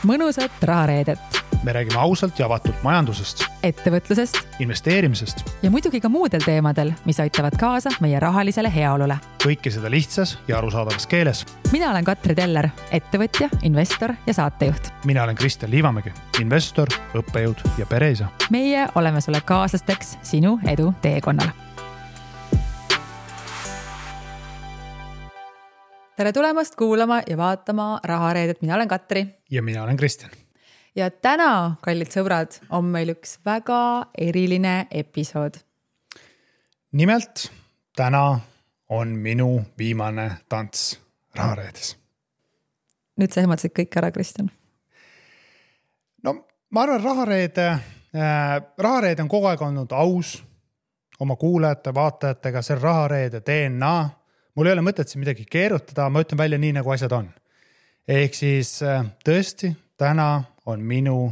mõnusat rahareedet. Me räägime ausalt ja avatult majandusest, ettevõtlusest investeerimisest ja muidugi ka muudel teemadel, mis aitavad kaasa meie rahalisele heaolule. Kõike seda lihtsas ja arusaadavas keeles. Mina olen Katri Teller, ettevõtja, investor ja saatejuht. Mina olen Kristjan Liivamägi, investor, õppejõud ja pereisa. Meie oleme sulle kaaslasteks sinu edu teekonnal. Tere tulemast kuulama ja vaatama rahareedet. Mina olen Katri. Ja mina olen Kristjan. Ja täna, kallid sõbrad, on meil üks väga eriline episood. Nimelt, täna on minu viimane tants rahareedes. Nüüd sa ehmatasid kõik ära, Kristjan. No, ma arvan, rahareede on kogu aeg olnud aus oma kuulajate, vaatajatega, see rahareede DNA. Mul ei ole mõtet siin midagi keerutada, ma ütlen välja nii, nagu asjad on. Ehk siis tõesti, täna on minu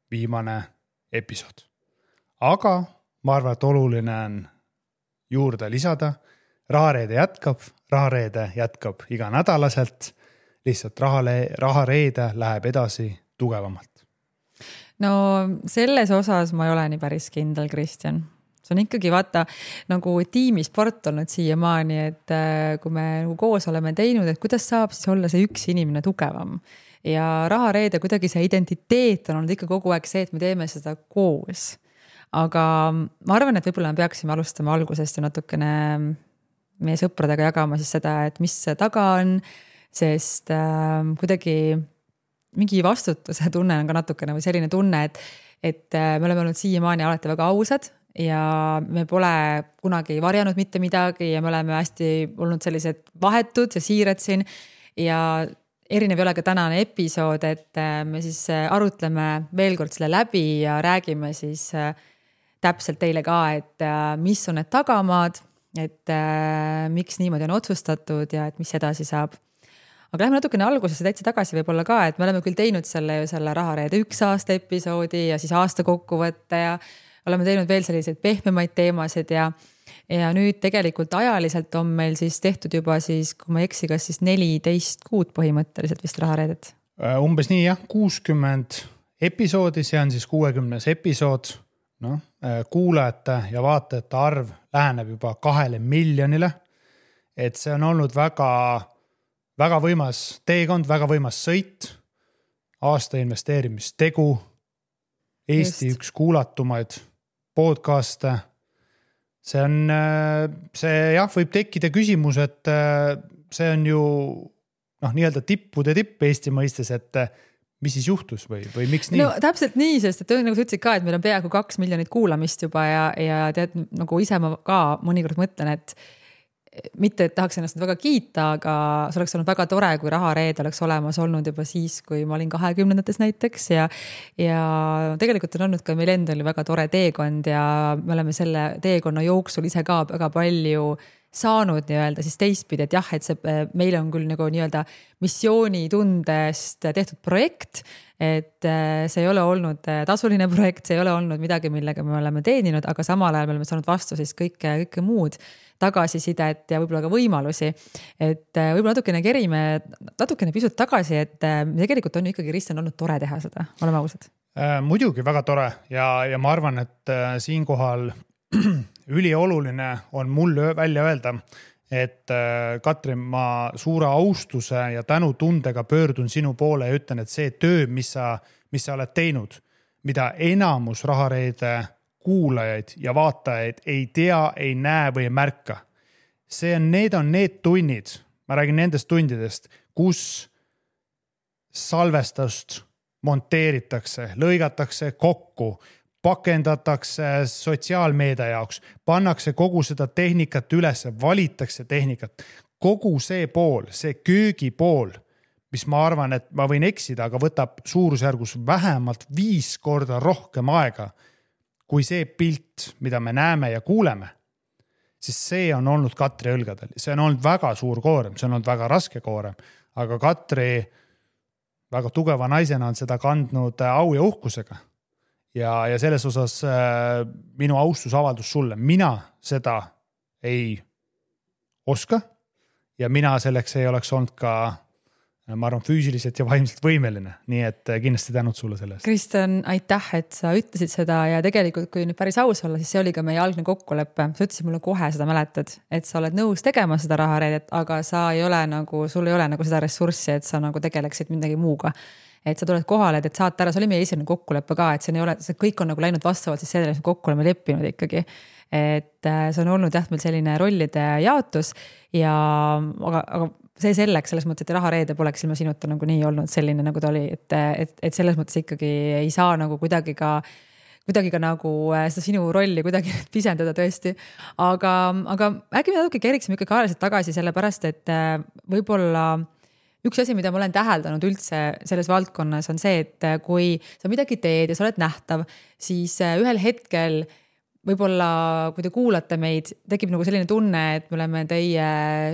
viimane episood. Aga ma arvan, et oluline on juurde lisada. Rahareede jätkab iga nädalaselt. Lihtsalt rahareede läheb edasi tugevamalt. No selles osas ma ei ole nii päris kindel, Kristjan. See on ikkagi vaata nagu tiimisport olnud siiamaani, et kui me koos oleme teinud, et kuidas saab siis olla see üks inimene tugevam. Ja rahareede kuidagi see identiteet on olnud ikka kogu aeg see, et me teeme seda koos. Aga ma arvan, et võib-olla me peaksime alustama algusest ja natukene meie sõpradega jagama siis seda, et mis see taga on, sest kuidagi mingi vastutuse tunne on ka natukene või selline tunne, et me oleme olnud siiamaani alati väga ausad ja me pole kunagi varjanud mitte midagi ja me oleme hästi olnud sellised vahetud ja siirad siin ja erinev ei ole ka tänane episood, et me siis arutleme veel kord selle läbi ja räägime siis täpselt teile ka, et mis on need tagamaad, et miks niimoodi on otsustatud ja et mis edasi saab. Aga lähme natukene algusesse täitsa tagasi võib-olla ka, et me oleme küll teinud selle rahareede 1 aasta episoodi ja siis aasta kokkuvõtte ja oleme teinud veel selliseid pehmemaid teemasid ja nüüd tegelikult ajaliselt on meil siis tehtud juba siis, kui ma eksi, kas siis 14 kuud põhimõtteliselt vist rahareedet? Umbes nii jah, 60 episoodi, see on siis 60 episood. No, kuulajate ja vaatajate arv läheneb juba 2 miljonile. Et see on olnud väga võimas teekond, väga võimas sõit, aasta investeerimistegu, Eesti üks kuulatumaid podcaste. See võib tekkida küsimus, et see on ju nii-öelda tippude tipp Eesti mõistes, et mis siis juhtus või miks nii? No täpselt nii, sest et nagu sa ütlesid ka, et meil on peaaegu 2 miljonit kuulamist juba ja tead, nagu ise ma ka mõnikord mõtlen, et mitte et tahaks ennast väga kiita, aga see oleks olnud väga tore, kui rahareede oleks olemas olnud juba siis, kui ma olin 20-ndates näiteks ja tegelikult on olnud ka meil endal väga tore teekond ja me oleme selle teekonna jooksul ise ka väga palju saanud nii-öelda siis teistpidi, et jah, et meil on küll nagu nii-öelda missioonitundest tehtud projekt, et see ei ole olnud tasuline projekt, see ei ole olnud midagi, millega me oleme teeninud, aga samal ajal me oleme saanud vastu siis kõike muud tagasisidet ja võib-olla ka võimalusi, et võib-olla natukene kerime natukene pisut tagasi, et tegelikult on ikkagi Kristjan olnud tore teha seda, oleme ausad. Muidugi väga tore ja ma arvan, et siinkohal ülioluline on mul välja öelda, et Katri, ma suure austuse ja tänutundega pöördun sinu poole ja ütlen, et see töö, mis sa oled teinud, mida enamus rahareede kuulajaid ja vaatajaid ei tea, ei näe või ei märka. Need on need tunnid, ma räägin nendest tundidest, kus salvestust monteeritakse, lõigatakse kokku, pakendatakse sotsiaalmeedia jaoks, pannakse kogu seda tehnikat üles, valitakse tehnikat. Kogu see pool, see köögi pool, mis ma arvan, et ma võin eksida, aga võtab suurusjärgus vähemalt 5 korda rohkem aega, kui see pilt, mida me näeme ja kuuleme, siis see on olnud Katri õlgadel. See on olnud väga suur koorem, see on olnud väga raske koorem, aga Katri väga tugeva naisena on seda kandnud au ja uhkusega. Ja selles osas minu austusavaldus sulle. Mina seda ei oska ja mina selleks ei oleks olnud ka ma arvan, füüsiliselt ja vaimselt võimeline, nii et kindlasti tänud sulle selle eest. Kristjan, aitäh, et sa ütlesid seda ja tegelikult, kui nüüd päris aus olla, siis see oli ka meie algne kokkulepe. Sa ütlesid mulle kohe seda mäletad, et sa oled nõus tegema seda rahareedet, aga sul ei ole nagu seda ressurssi, et sa nagu tegeleksid midagi muuga. Et sa tuled kohale, et saate ära, see oli meie esimene kokkulepe ka, et see kõik on nagu läinud vastavalt siis sellele, kokku oleme leppinud ikkagi. Et see on olnud jah, meil selline rollide jaotus ja aga see selleks, selles mõttes, et rahareede poleks ilma sinuta nagu nii olnud selline, nagu ta oli, et selles mõttes ikkagi ei saa nagu kuidagi ka nagu seda sinu rolli kuidagi pisendada tõesti. Aga äkki me natuke keriksime ikkagi ajaliselt tagasi sellepärast, et võib-olla üks asi, mida ma olen täheldanud üldse selles valdkonnas on see, et kui sa midagi teed ja sa oled nähtav, siis ühel hetkel võib-olla, kui te kuulate meid, tekib nagu selline tunne, et me oleme teie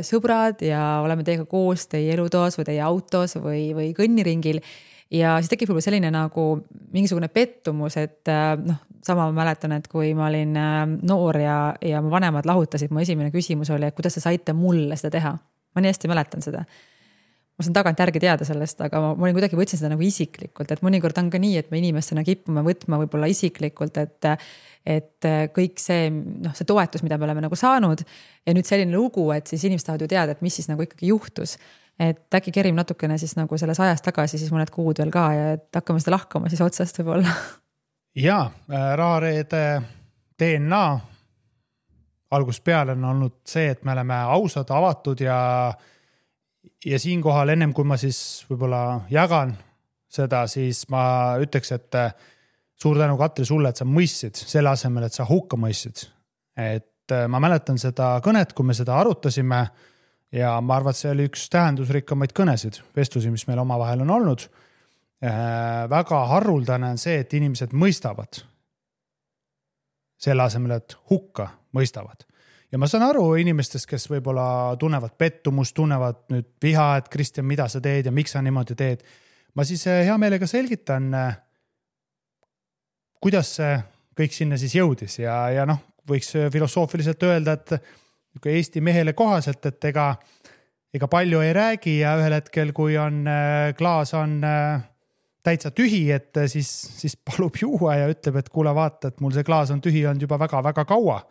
sõbrad ja oleme teiega koos teie elutoas või teie autos või kõnniringil. Ja siis tekib võib-olla selline nagu mingisugune pettumus, et sama ma mäletan, et kui ma olin noor ja mu vanemad lahutasid, mu esimene küsimus oli, et kuidas te saite mulle seda teha. Ma nii hästi mäletan seda. Ma saan tagant järgi teada sellest, aga ma olin kuidagi võtsin seda nagu isiklikult, et mõnikord on ka nii, et me inimestena kipume võtma võib-olla isiklikult, et kõik see toetus, mida me oleme nagu saanud ja nüüd selline lugu, et siis inimesed tahavad ju teada, et mis siis nagu ikkagi juhtus. Et äkki kerim natukene siis nagu selles ajas tagasi, siis mõned kuud veel ka ja et hakkame seda lahkama siis otsast võib-olla. Jaa, rahareede DNA algusest peale on olnud see, et me oleme ausad, avatud ja siinkohal ennem kui ma siis võib-olla jagan seda, siis ma ütleks, et suur tänu Katri sulle, et sa mõistsid selle asemel, et sa hukka mõistsid. Et ma mäletan seda kõnet, kui me seda arutasime ja ma arvan, et see oli üks tähendusrikkamaid kõnesid, vestlusi, mis meil omavahel on olnud. Väga haruldane on see, et inimesed mõistavad selle asemel, et hukka mõistavad. Ja ma saan aru inimestest, kes võib-olla tunnevad pettumust, tunnevad nüüd viha, et Kristjan, mida sa teed ja miks sa niimoodi teed. Ma siis hea meelega selgitan, kuidas see kõik sinna siis jõudis ja võiks filosoofiliselt öelda, et Eesti mehele kohaselt, et ega palju ei räägi ja ühel hetkel, kui klaas on täitsa tühi, et siis palub juua ja ütleb, et kuule vaata, et mul see klaas on tühi olnud juba väga-väga kaua.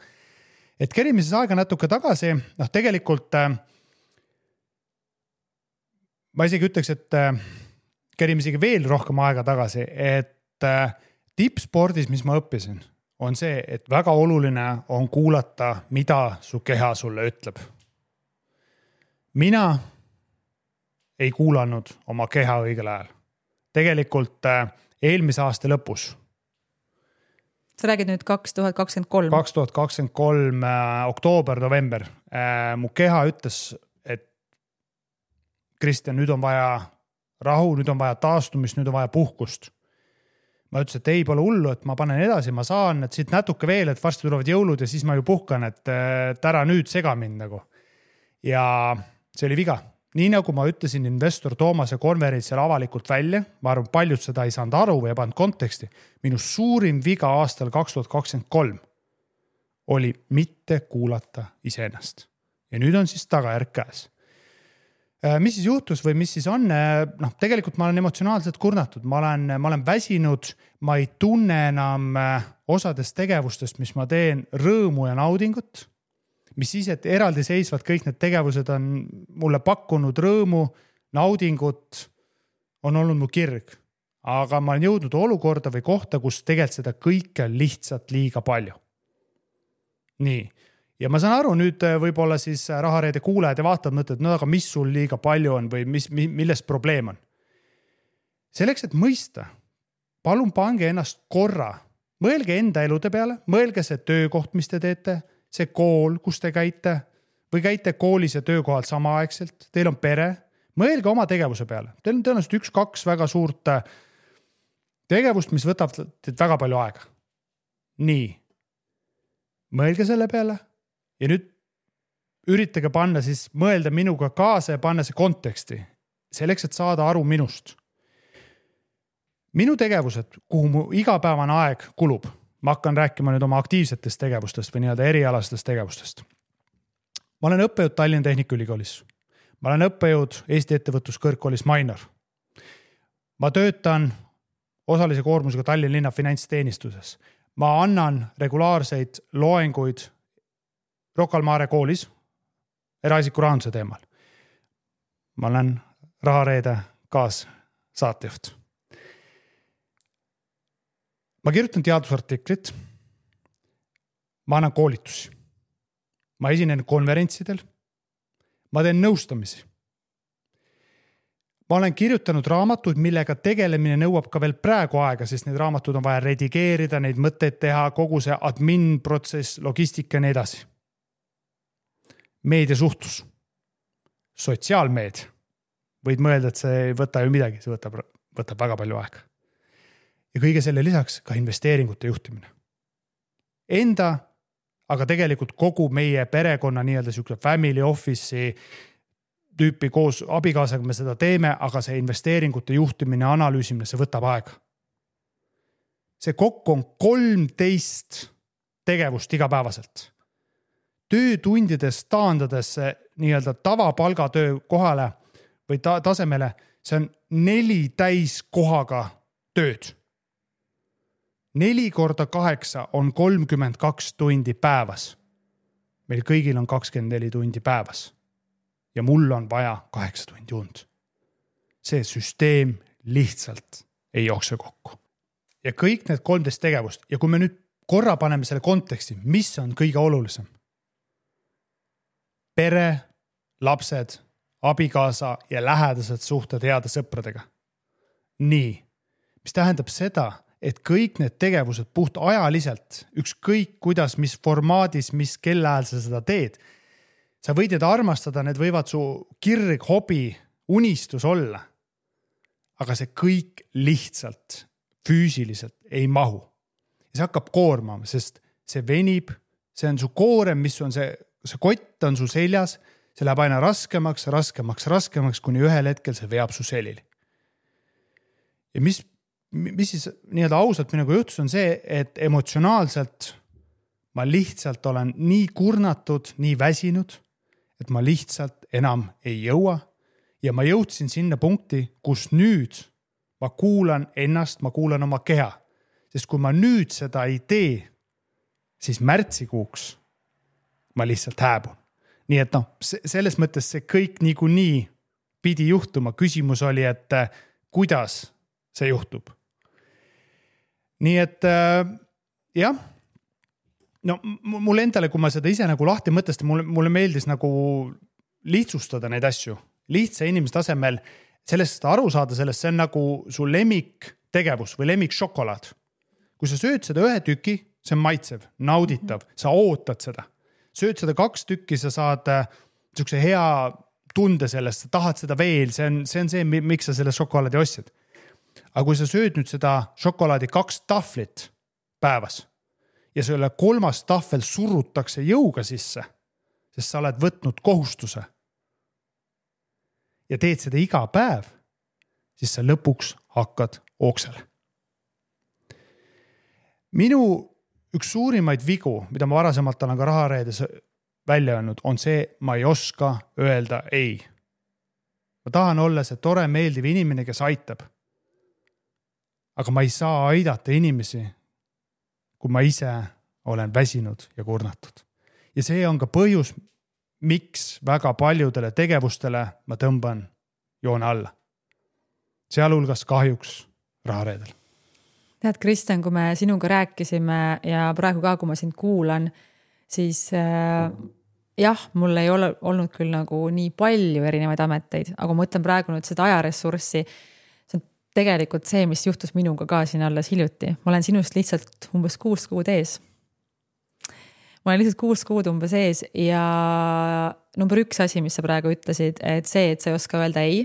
Et kerime siis aega natuke tagasi, tegelikult ma isegi ütleks, et kerime isegi veel rohkem aega tagasi, et tippspordis, mis ma õppisin, on see, et väga oluline on kuulata, mida su keha sulle ütleb. Mina ei kuulanud oma keha õigel ajal. Tegelikult eelmise aasta lõpus. Sa räägid nüüd 2023. 2023 oktoober, november. Mu keha ütles, et Kristjan, nüüd on vaja rahu, nüüd on vaja taastumist, nüüd on vaja puhkust. Ma ütlesin, et ei pole hullu, et ma panen edasi, ma saan, et siit natuke veel, et varsti tulevad jõulud ja siis ma ju puhkan, et ära nüüd sega mind nagu. Ja see oli viga. Nii nagu ma ütlesin investor Toomase konverentsel avalikult välja, ma arvan, paljud seda ei saanud aru või ei pannud konteksti. Minu suurim viga aastal 2023 oli mitte kuulata iseennast. Ja nüüd on siis tagajärg käes. Mis siis juhtus või mis siis on? Tegelikult ma olen emotsionaalselt kurnatud. Ma olen väsinud, ma ei tunne enam osadest tegevustest, mis ma teen rõõmu ja naudingut. Mis siis, et eraldi seisvad kõik need tegevused on mulle pakkunud rõõmu, naudingut, on olnud mu kirg. Aga ma olen jõudnud olukorda või kohta, kus tegelikult seda kõike on lihtsalt liiga palju. Nii. Ja ma saan aru, nüüd võib-olla siis rahareede kuulajad ja vaatavad mõtled, no aga mis sul liiga palju on või milles probleem on. Selleks, et mõista, palun pange ennast korra. Mõelge enda elude peale, mõelge see töökoht, mis te teete, see kool, kus te käite või käite koolis ja töökohal samaaegselt, teil on pere, mõelge oma tegevuse peale. Teil on tõenäoliselt 1-2 väga suurt tegevust, mis võtab teid väga palju aega. Nii, mõelge selle peale ja nüüd üritage panna siis mõelda minuga kaasa ja panna see konteksti, selleks, et saada aru minust. Minu tegevused, kuhu mu igapäevane aeg kulub, ma hakkan rääkima nüüd oma aktiivsetest tegevustest või nii-öelda erialastest tegevustest. Ma olen õppejõud Tallinna Tehnikaülikoolis. ma olen õppejõud Eesti ettevõtluskõrgkoolis Mainor. Ma töötan osalise koormusega Tallinna linna finantsteenistuses. Ma annan regulaarseid loenguid Rocca al Mare koolis eraisiku rahanduse teemal. Ma olen Rahareede kaassaatejuht. Ma kirjutan teadusartiklit. Ma annan koolitusi. Ma esinen konverentsidel. Ma teen nõustamisi. Ma olen kirjutanud raamatuid, millega tegelemine nõuab ka veel praegu aega, sest need raamatud on vaja redigeerida, neid mõtteid teha, kogu see admin protsess, logistika ja nii edasi. Meediasuhtlus, sotsiaalmeedia. Võid mõelda, et see ei võta ju midagi, see võtab väga palju aega. Ja kõige selle lisaks ka investeeringute juhtimine. Enda, aga tegelikult kogu meie perekonna nii-öelda siukse family office'i tüüpi koos abikaasaga me seda teeme, aga see investeeringute juhtimine, analüüsimine, see võtab aega. See kokku on 13 tegevust igapäevaselt. Töötundides taandades nii-öelda tavapalgatöö kohale või tasemele, see on 4 täiskohaga tööd. 4 korda 8 on 32 tundi päevas. Meil kõigil on 24 tundi päevas. Ja mul on vaja 8 tundi und. See süsteem lihtsalt ei jookse kokku. Ja kõik need 13 tegevust. Ja kui me nüüd korra paneme selle konteksti, mis on kõige olulisem? Pere, lapsed, abikaasa ja lähedased suhted heade sõpradega. Nii, mis tähendab seda, et kõik need tegevused puht ajaliselt, ükskõik kuidas, mis formaadis, mis kellaajal sa seda teed, sa võid need armastada, need võivad su kirg, hobi, unistus olla. Aga see kõik lihtsalt füüsiliselt ei mahu. Ja see hakkab koormama, sest see venib, see on su koorem, mis on see kott on su seljas, see läheb aina raskemaks, kuni ühel hetkel see veab su selili. Ja mis siis nii-öelda ausalt minuga juhtus on see, et emotsionaalselt ma lihtsalt olen nii kurnatud, nii väsinud, et ma lihtsalt enam ei jõua ja ma jõudsin sinna punkti, kus nüüd ma kuulan ennast, ma kuulan oma keha. Sest kui ma nüüd seda ei tee, siis märtsikuuks ma lihtsalt hääbun. Nii et selles mõttes see kõik niikuinii pidi juhtuma. Küsimus oli, et kuidas see juhtub. Nii et jah, no mulle endale, kui ma seda ise nagu lahti mõtestan, mulle meeldis nagu lihtsustada neid asju. Lihtsa inimese tasemel sellest aru saada sellest, see on nagu su lemmik tegevus või lemmik šokolaad. Kui sa sööd seda 1 tüki, see on maitsev, nauditav, sa ootad seda. Sööd seda 2 tükki, sa saad niisuguse hea tunde sellest, sa tahad seda veel, see on see, miks sa selle šokolaadi ostsid. Aga kui sa sööd nüüd seda šokolaadi 2 tahvlit päevas ja selle 3. tahvel surutakse jõuga sisse, sest sa oled võtnud kohustuse ja teed seda iga päev, siis sa lõpuks hakkad ooksele. Minu üks suurimaid vigu, mida ma varasemalt olen ka Rahareedes välja öelnud, on see, ma ei oska öelda ei. Ma tahan olla see tore, meeldiv inimene, kes aitab. Aga ma ei saa aidata inimesi, kui ma ise olen väsinud ja kurnatud. Ja see on ka põhjus, miks väga paljudele tegevustele ma tõmban joone alla. Sealhulgas kahjuks Rahareedel. Tead, Kristjan, kui me sinuga rääkisime ja praegu ka, kui ma sind kuulan, siis jah, mul ei ole olnud küll nagu nii palju erinevaid ameteid, aga ma mõtlen praegu nüüd seda ajaressurssi. See on tegelikult see, mis juhtus minuga ka siin alles hiljuti. Ma olen sinust lihtsalt umbes 6 kuud ees. Ma olen lihtsalt 6 kuud umbes ees ja number 1 asi, mis sa praegu ütlesid, et see, et sa ei oska öelda ei.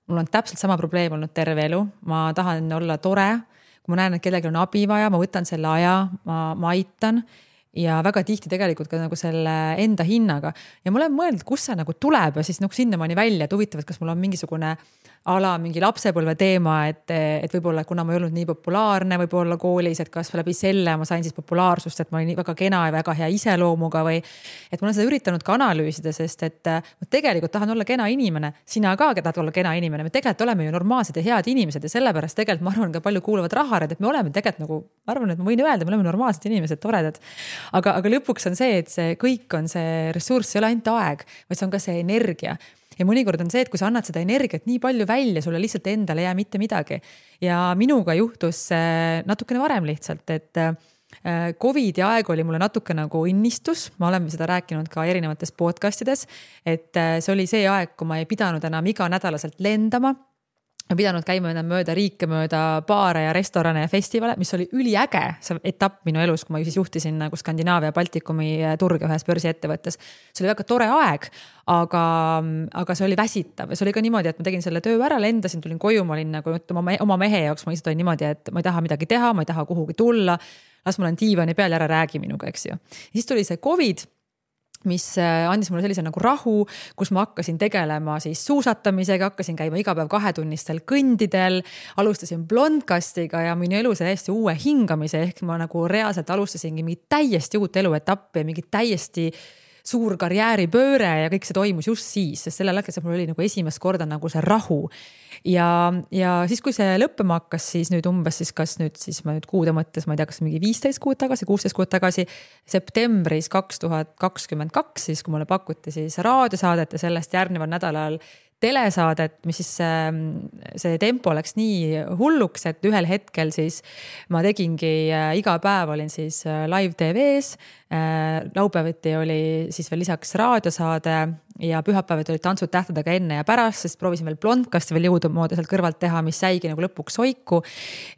Mul on täpselt sama probleem olnud terve elu. Ma tahan olla tore. Kui ma näen, et kellelgi on abi vaja, ma võtan selle aja, ma aitan ja väga tihti tegelikult ka nagu selle enda hinnaga. Ja ma olen mõelnud, kus see nagu tuleb ja siis nagu sinnamaani välja, et huvitav, et kas mul on mingisugune mingi lapsepõlve teema, et võib-olla kuna ma ei olnud nii populaarne võib-olla koolis, et kas läbi selle ma sain siis populaarsust, et ma olin väga kena ja väga hea iseloomuga või et ma olen seda üritanud ka analüüsida, sest et ma tegelikult tahan olla kena inimene, sina ka tahad olla kena inimene, me tegelikult oleme ju normaalsed ja head inimesed ja sellepärast tegelikult ma arvan ka palju kuuluvad rahared, et me oleme tegelikult nagu, ma arvan, et ma võin öelda, me oleme normaalsed inimesed, toredad. Aga lõpuks on see, et see kõik on see ressurss, ei ole ainult aeg, vaid see on ka see energia. Ja mõnikord on see, et kui sa annad seda energiat nii palju välja, sulle lihtsalt endale ei jää mitte midagi. Ja minuga juhtus natukene varem lihtsalt, et Covidi aeg oli mulle natuke nagu innistus, ma olen seda rääkinud ka erinevates podcastides, et see oli see aeg, kui ma ei pidanud enam iga nädalaselt lendama. Ma pidanud käima enam mööda riike, mööda baare ja restorane ja festivale, mis oli üliäge see etapp minu elus, kui ma siis juhtisin nagu Skandinaavia ja Baltikumi turge ühes börsiettevõttes. See oli väga tore aeg, aga see oli väsitav ja see oli ka niimoodi, et ma tegin selle töö ära, lendasin, tulin koju, ma olin nagu oma mehe jaoks, ma lihtsalt olin niimoodi, et ma ei taha midagi teha, ma ei taha kuhugi tulla, las ma olen diivani peal ja ära räägi minuga, eks ju. Ja siis tuli see Covid, mis andis mulle sellise nagu rahu, kus ma hakkasin tegelema siis suusatamisega, hakkasin käima iga päev 2-tunnistel kõndidel, alustasin blondkastiga ja minu elu see täiesti uue hingamise, ehk ma nagu reaalselt alustasingi mingi täiesti uut eluetappi ja mingi täiesti suur karjääripööre ja kõik see toimus just siis, sest sellel hetkel mul oli nagu esimest korda nagu see rahu. Ja siis, kui see lõppema hakkas, siis nüüd umbes siis kas nüüd siis ma nüüd kuude mõttes, ma ei tea, kas mingi 15 kuud tagasi, 16 kuud tagasi, septembris 2022, siis kui mulle pakuti siis raadiosaadet ja sellest järgneval nädalal telesaadet, mis siis see tempo läks nii hulluks, et ühel hetkel siis ma tegingi iga päev olin siis live TV-s, laupäeviti oli siis veel lisaks raadiosaade ja pühapäevad olid tantsud tähtedega enne ja pärast, sest proovisin veel blondkasti veel jõudumoodi sealt kõrvalt teha, mis jäigi nagu lõpuks soiku.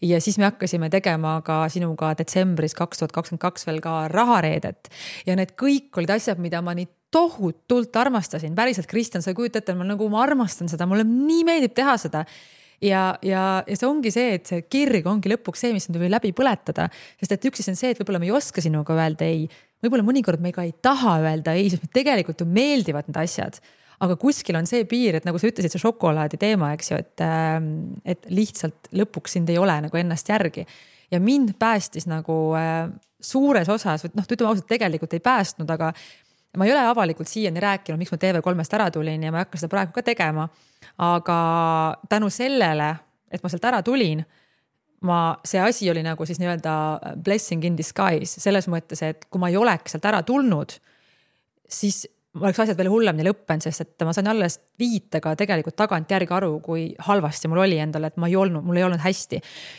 Ja siis me hakkasime tegema ka sinuga detsembris 2022 veel ka rahareedet ja need kõik olid asjad, mida ma nii tohutult armastasin. Päriselt, Kristjan, sa kujuta ette, ma armastan seda, mulle nii meeldib teha seda. Ja see ongi see, et see kirg ongi lõpuks see, mis tuli läbi põletada. Sest et üks on see, et võib-olla me ei oska sinuga öelda ei. Võib-olla mõnikord me ka ei taha öelda ei, sest me tegelikult ju meeldivad need asjad. Aga kuskil on see piir, et nagu sa ütlesid, see šokolaadi teema, eks ju, et lihtsalt lõpuks sind ei ole nagu ennast järgi. Ja mind päästis nagu suures osas, ütleme ausalt, tegelikult ei päästnud, aga ma ei ole avalikult siiani rääkinud, miks ma TV3-st ära tulin ja ma ei hakka seda praegu ka tegema. Aga tänu sellele, et ma sealt ära tulin, see asi oli nagu siis nii-öelda blessing in disguise. Selles mõttes, et kui ma ei oleks sealt ära tulnud, siis oleks asjad veel hullemini lõppenud, sest et ma sain alles viitega tegelikult tagant järgi aru, kui halvasti mul oli endale, et mul ei olnud hästi.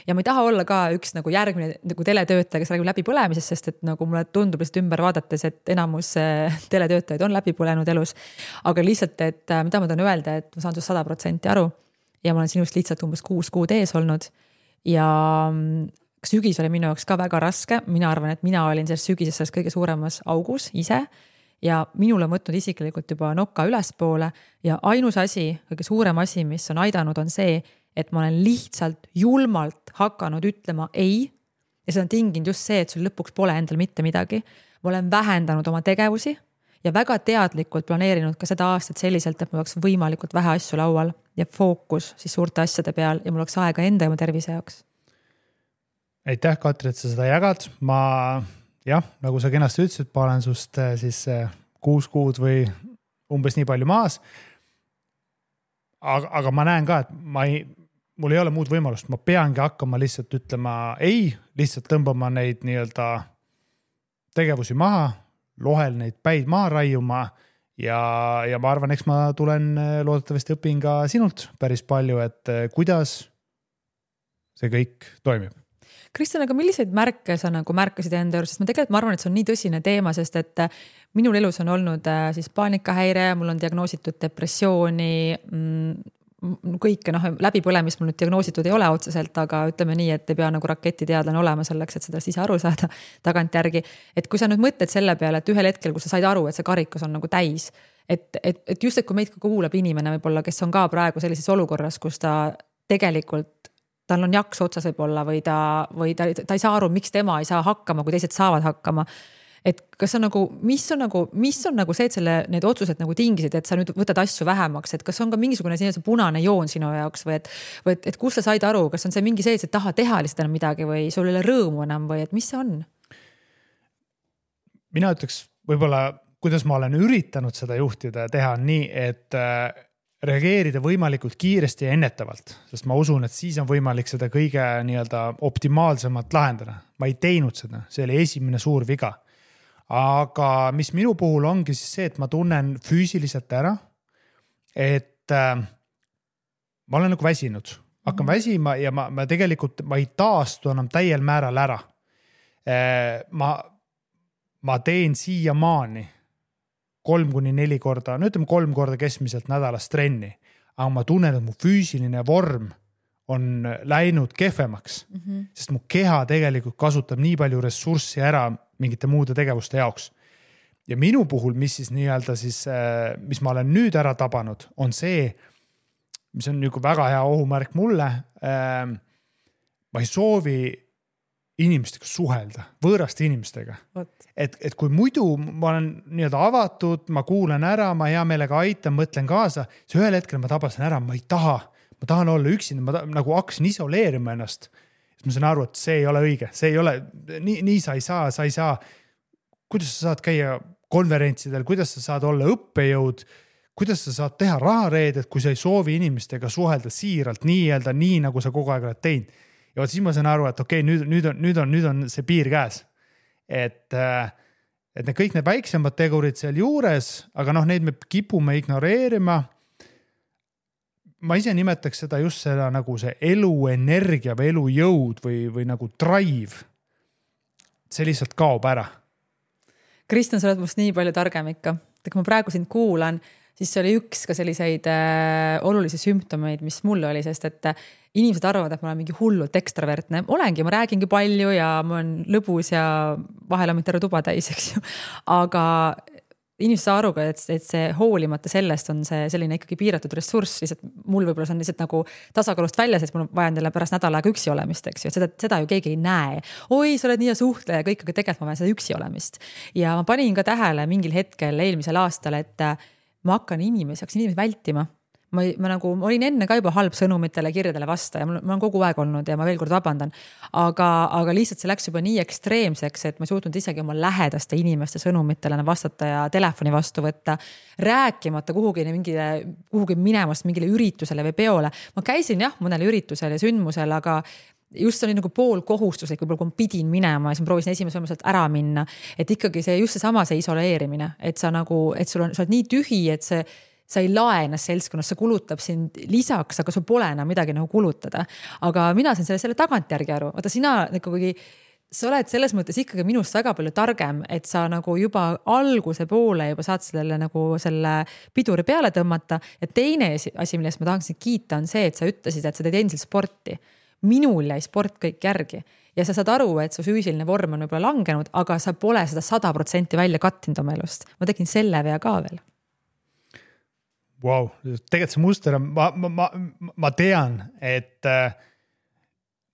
Ja ma ei taha olla ka üks nagu järgmine nagu teletöötaja, kes räägib läbi põlemisest, sest et nagu mulle tundub lihtsalt ümber vaadates, et enamus teletöötajaid on läbi põlenud elus. Aga lihtsalt, et mida ma tahan öelda, et ma saan sinust 100% aru ja ma olen sinust lihtsalt umbes 6 kuud ees olnud. Ja sügis oli minu jaoks ka väga raske. Mina arvan, et mina olin selles sügises selles kõige suuremas augus ise. Ja minule võtnud isiklikult juba nokka ülespoole ja ainus asi, kõige suurem asi, mis on aidanud, on see, et ma olen lihtsalt julmalt hakanud ütlema ei ja see on tinginud just see, et sul lõpuks pole endal mitte midagi. Ma olen vähendanud oma tegevusi ja väga teadlikult planeerinud ka seda aastat selliselt, et mul oleks võimalikult vähe asju laual ja fookus siis suurte asjade peal ja mul oleks aega enda ja oma tervise jaoks. Aitäh, Katri, et sa seda jagad. Jah, nagu sa kenasti ütlesid, ma olen sust siis 6 kuud või umbes nii palju maas. Aga ma näen ka, et mul ei ole muud võimalust. Ma peangi hakkama lihtsalt ütlema ei, lihtsalt tõmbama neid nii-öelda tegevusi maha, lohel neid päid maha raiuma ja ma arvan, eks ma tulen loodetavasti õpin ka sinult päris palju, et kuidas see kõik toimib. Kristjan, aga milliseid märke sa nagu märkasid enda juures, sest ma arvan, et see on nii tõsine teema, sest et minul elus on olnud siis paanikahäire, mul on diagnoositud depressiooni, kõike läbipõlemist mul nüüd diagnoositud ei ole otseselt, aga ütleme nii, et ei pea nagu raketiteadlane olema selleks, et seda ise aru saada tagant järgi. Et kui sa nüüd mõtled selle peale, et ühel hetkel, kui sa said aru, et see karikus on nagu täis, et just, et kui meid kuulab inimene võib-olla, kes on ka praegu sellises olukorras, kus ta tegelikult tal on jaks otsas võib-olla või ta ei saa aru, miks tema ei saa hakkama, kui teised saavad hakkama. et kas on nagu, mis on nagu see, et need otsused nagu tingisid, et sa nüüd võtad asju vähemaks, et kas on ka mingisugune see punane joon sinu jaoks või et kus sa said aru, kas on see mingi see, et sa taha teha lihtsalt enam midagi või sul ei ole rõõmu enam või et mis see on? Mina ütleks võib-olla, kuidas ma olen üritanud seda juhtida ja teha nii, et reageerida võimalikult kiiresti ja ennetavalt, sest ma usun, et siis on võimalik seda kõige nii-öelda optimaalsemalt lahendada. Ma ei teinud seda, see oli esimene suur viga. Aga mis minu puhul ongi siis see, et ma tunnen füüsiliselt ära, et ma olen nagu väsinud. Hakkan väsima ja ma tegelikult ei taastu enam täiel määral ära. Ma teen siiamaani 3-4 korda, no ütleme 3 korda keskmiselt nädalas trenni, aga ma tunnen, et mu füüsiline vorm on läinud kehvemaks, sest mu keha tegelikult kasutab nii palju ressurssi ära mingite muude tegevuste jaoks. Ja minu puhul, mis siis nii-öelda siis, mis ma olen nüüd ära tabanud, on see, mis on nagu väga hea ohumärk mulle. Ma ei soovi inimestega suhelda, võõraste inimestega. Et kui muidu ma olen nii-öelda avatud, ma kuulen ära, ma hea meelega aitan, mõtlen kaasa, siis ühel hetkel ma tabasin ära, ma tahan olla üksinda, ma nagu hakkasin isoleerima ennast. Ma saan aru, et see ei ole õige, see ei ole, nii sa ei saa. Kuidas sa saad käia konverentsidel, kuidas sa saad olla õppejõud, kuidas sa saad teha rahareedet, kui sa ei soovi inimestega suhelda siiralt, nii nagu sa kogu aeg oled teinud. Ja siis ma saan aru, et okei, nüüd on see piir käes. Et kõik need väiksemad tegurid seal juures, aga neid me kipume ignoreerima. Ma ise nimetaks seda just seda nagu see eluenergia või elujõud või nagu drive. See lihtsalt kaob ära. Kristjan, sa oled must nii palju targem ikka. Kui ma praegu sind kuulan, siis see oli üks ka selliseid olulisi sümptomeid, mis mulle oli, sest et inimesed arvavad, et ma olen mingi hullult ekstravertne. Olengi, ma räägingi palju ja ma olen lõbus ja vahel on terve tuba täis, eks ju. Aga inimesed saa aru ka, et see hoolimata sellest on see selline ikkagi piiratud ressurss. Lihtsalt mul võib-olla see on lihtsalt nagu tasakaalust väljas, et mul vajan teile pärast nädal aega üksi olemist, eks ju. Seda ju keegi ei näe. Oi, sa oled nii ja suhtleja kõik, aga tegelikult ma vajan seda üksi olemist. Ja ma panin ka tähele mingil hetkel eelmisel aastal, et ma hakkan inimesi vältima. Ma olin enne ka juba halb sõnumitele, kirjadele vasta ja ma olen kogu aeg olnud ja ma veel kord vabandan. Aga lihtsalt see läks juba nii ekstreemseks, et ma ei suutnud isegi oma lähedaste inimeste sõnumitele vastata ja telefoni vastu võtta, rääkimata kuhugi minemast mingile üritusele või peole. Ma käisin mõnel üritusel ja sündmusel, aga just see oli nagu pool kohustuslik, võib-olla kui ma pidin minema ja siis ma proovisin esimese võimaluselt ära minna. Et ikkagi see just seesama see isoleerimine, et sa oled nii tühi, et sa ei lae ennast seltskonnas, see kulutab sind lisaks, aga sul pole enam midagi nagu kulutada. Aga mina sain selle tagantjärgi aru. Vaata, sa oled selles mõttes ikkagi minust väga palju targem, et sa nagu juba alguse poole juba saad selle piduri peale tõmmata. Ja teine asi, millest ma tahaksin kiita, on see, et sa ütlesid, et sa teed endiselt sporti. Minul jäi sport kõik järgi. Ja sa saad aru, et su füüsiline vorm on võib-olla langenud, aga sa pole seda 100% välja kattinud oma elust. Ma tegin selle vea ka veel. Wow, tegelikult see muster on, ma tean, et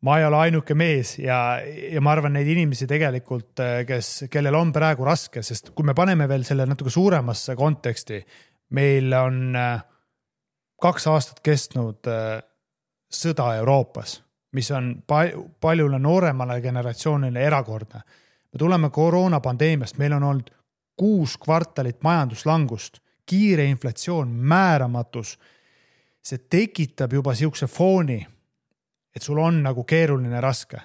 ma ei ole ainuke mees ja ma arvan neid inimesi tegelikult, kellel on praegu raske, sest kui me paneme veel selle natuke suuremasse konteksti, meil on 2 aastat kestnud sõda Euroopas, mis on paljule nooremale generatsioonile erakordne. Me tuleme koroonapandeemiast, meil on olnud 6 kvartalit majanduslangust, kiire inflatsioon, määramatus. See tekitab juba siukse fooni, et sul on nagu keeruline raske.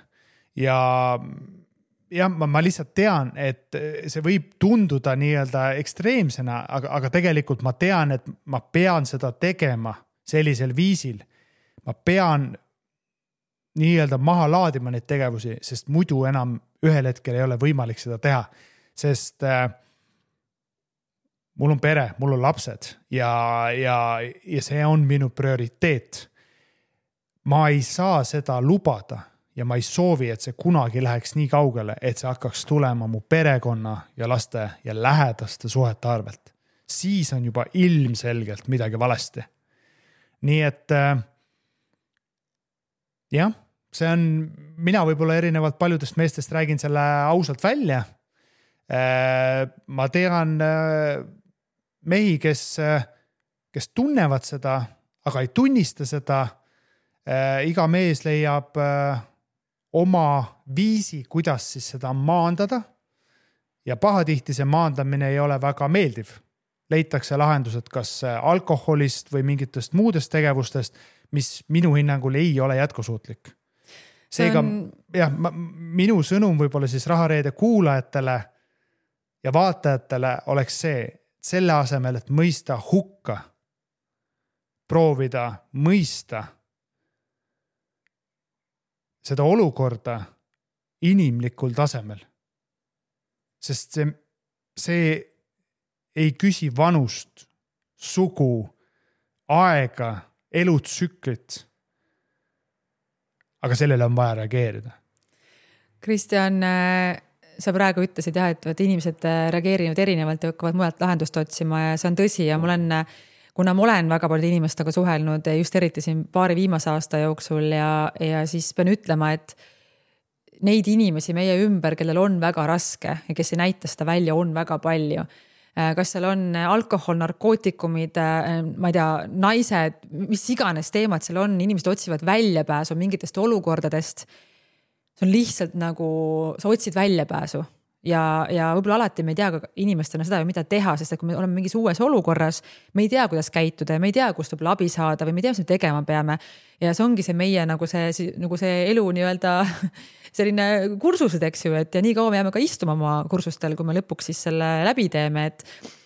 Ja ma lihtsalt tean, et see võib tunduda nii-öelda ekstreemsena, aga tegelikult ma tean, et ma pean seda tegema sellisel viisil. Ma pean nii-öelda maha laadima neid tegevusi, sest muidu enam ühel hetkel ei ole võimalik seda teha. Sest mul on pere, mul on lapsed ja see on minu prioriteet. Ma ei saa seda lubada ja ma ei soovi, et see kunagi läheks nii kaugele, et see hakkaks tulema mu perekonna ja laste ja lähedaste suhete arvelt. Siis on juba ilmselgelt midagi valesti. Nii et jah, see on, mina võib-olla erinevalt paljudest meestest räägin selle ausalt välja. Ma tean mehi, kes tunnevad seda, aga ei tunnista seda. Iga mees leiab oma viisi, kuidas siis seda maandada ja pahatihti see maandamine ei ole väga meeldiv. Leitakse lahendused kas alkoholist või mingitest muudest tegevustest, mis minu hinnangul ei ole jätkusuutlik. Seega, minu sõnum võib-olla siis Rahareede kuulajatele ja vaatajatele oleks see, selle asemel, et mõista hukka, proovida mõista seda olukorda inimlikul tasemel. Sest see ei küsi vanust, sugu, aega, elutsüklit. Aga sellele on vaja reageerida. Kristjan, sa praegu ütlesid jah, et inimesed reageerivad erinevalt ja hakkavad mujalt lahendust otsima ja see on tõsi ja kuna ma olen väga palju inimestega suhelnud just eriti siin paari viimase aasta jooksul ja siis pean ütlema, et neid inimesi meie ümber, kellel on väga raske ja kes ei näita seda välja, on väga palju. Kas seal on alkohol, narkootikumid, ma ei tea, naised, mis iganes teemad seal on, inimesed otsivad väljapääsu mingitest olukordadest. See on lihtsalt nagu, sa otsid väljapääsu ja võib-olla alati me ei tea inimestena seda, mida teha, sest et kui me oleme mingis uues olukorras, me ei tea, kuidas käituda ja me ei tea, kust võib abi saada või me ei tea, mis me tegema peame. Ja see ongi see meie nagu see elu nii-öelda selline kursused, eks ju, et ja nii kaua me jääme ka istuma oma kursustel, kui me lõpuks siis selle läbi teeme, et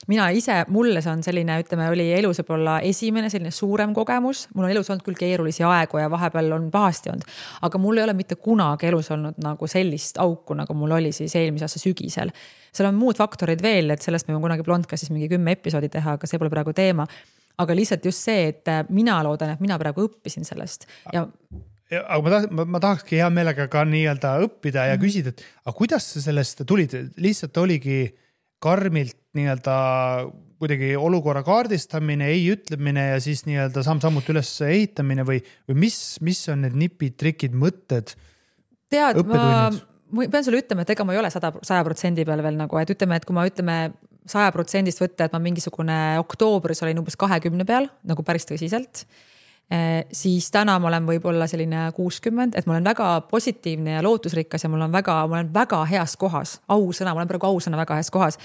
mina ise, mulle see on selline, ütleme, oli elus võib-olla esimene selline suurem kogemus. Mul on elus olnud küll keerulisi aegu ja vahepeal on pahasti olnud, aga mul ei ole mitte kunagi elus olnud nagu sellist auku, nagu mul oli siis eelmise aasta sügisel. Seal on muud faktorid veel, et sellest me võime kunagi Blondcastis mingi 10 episoodi teha, aga see pole praegu teema. Aga lihtsalt just see, et mina loodan, et mina praegu õppisin sellest. Aga ma tahakski hea meelega ka nii-öelda õppida ja küsida, et aga kuidas sa sellest tulid? Lihtsalt oligi karmilt nii-öelda kuidagi olukorra kaardistamine, ei ütlemine ja siis nii-öelda samm-sammut üles ehitamine või mis on need nipid, trikid, mõtted, õppetunnid? Ma pean sulle ütlema, et ega ma ei ole 100% peal veel nagu, et ütleme, et kui ma ütleme 100% võtta, et ma mingisugune oktoobris olin umbes 20 peal, nagu päris tõsiselt, siis täna ma olen võib-olla selline 60, et ma olen väga positiivne ja lootusrikas ja ma olen väga heas kohas, ausõna, ma olen praegu ausõna väga heas kohas,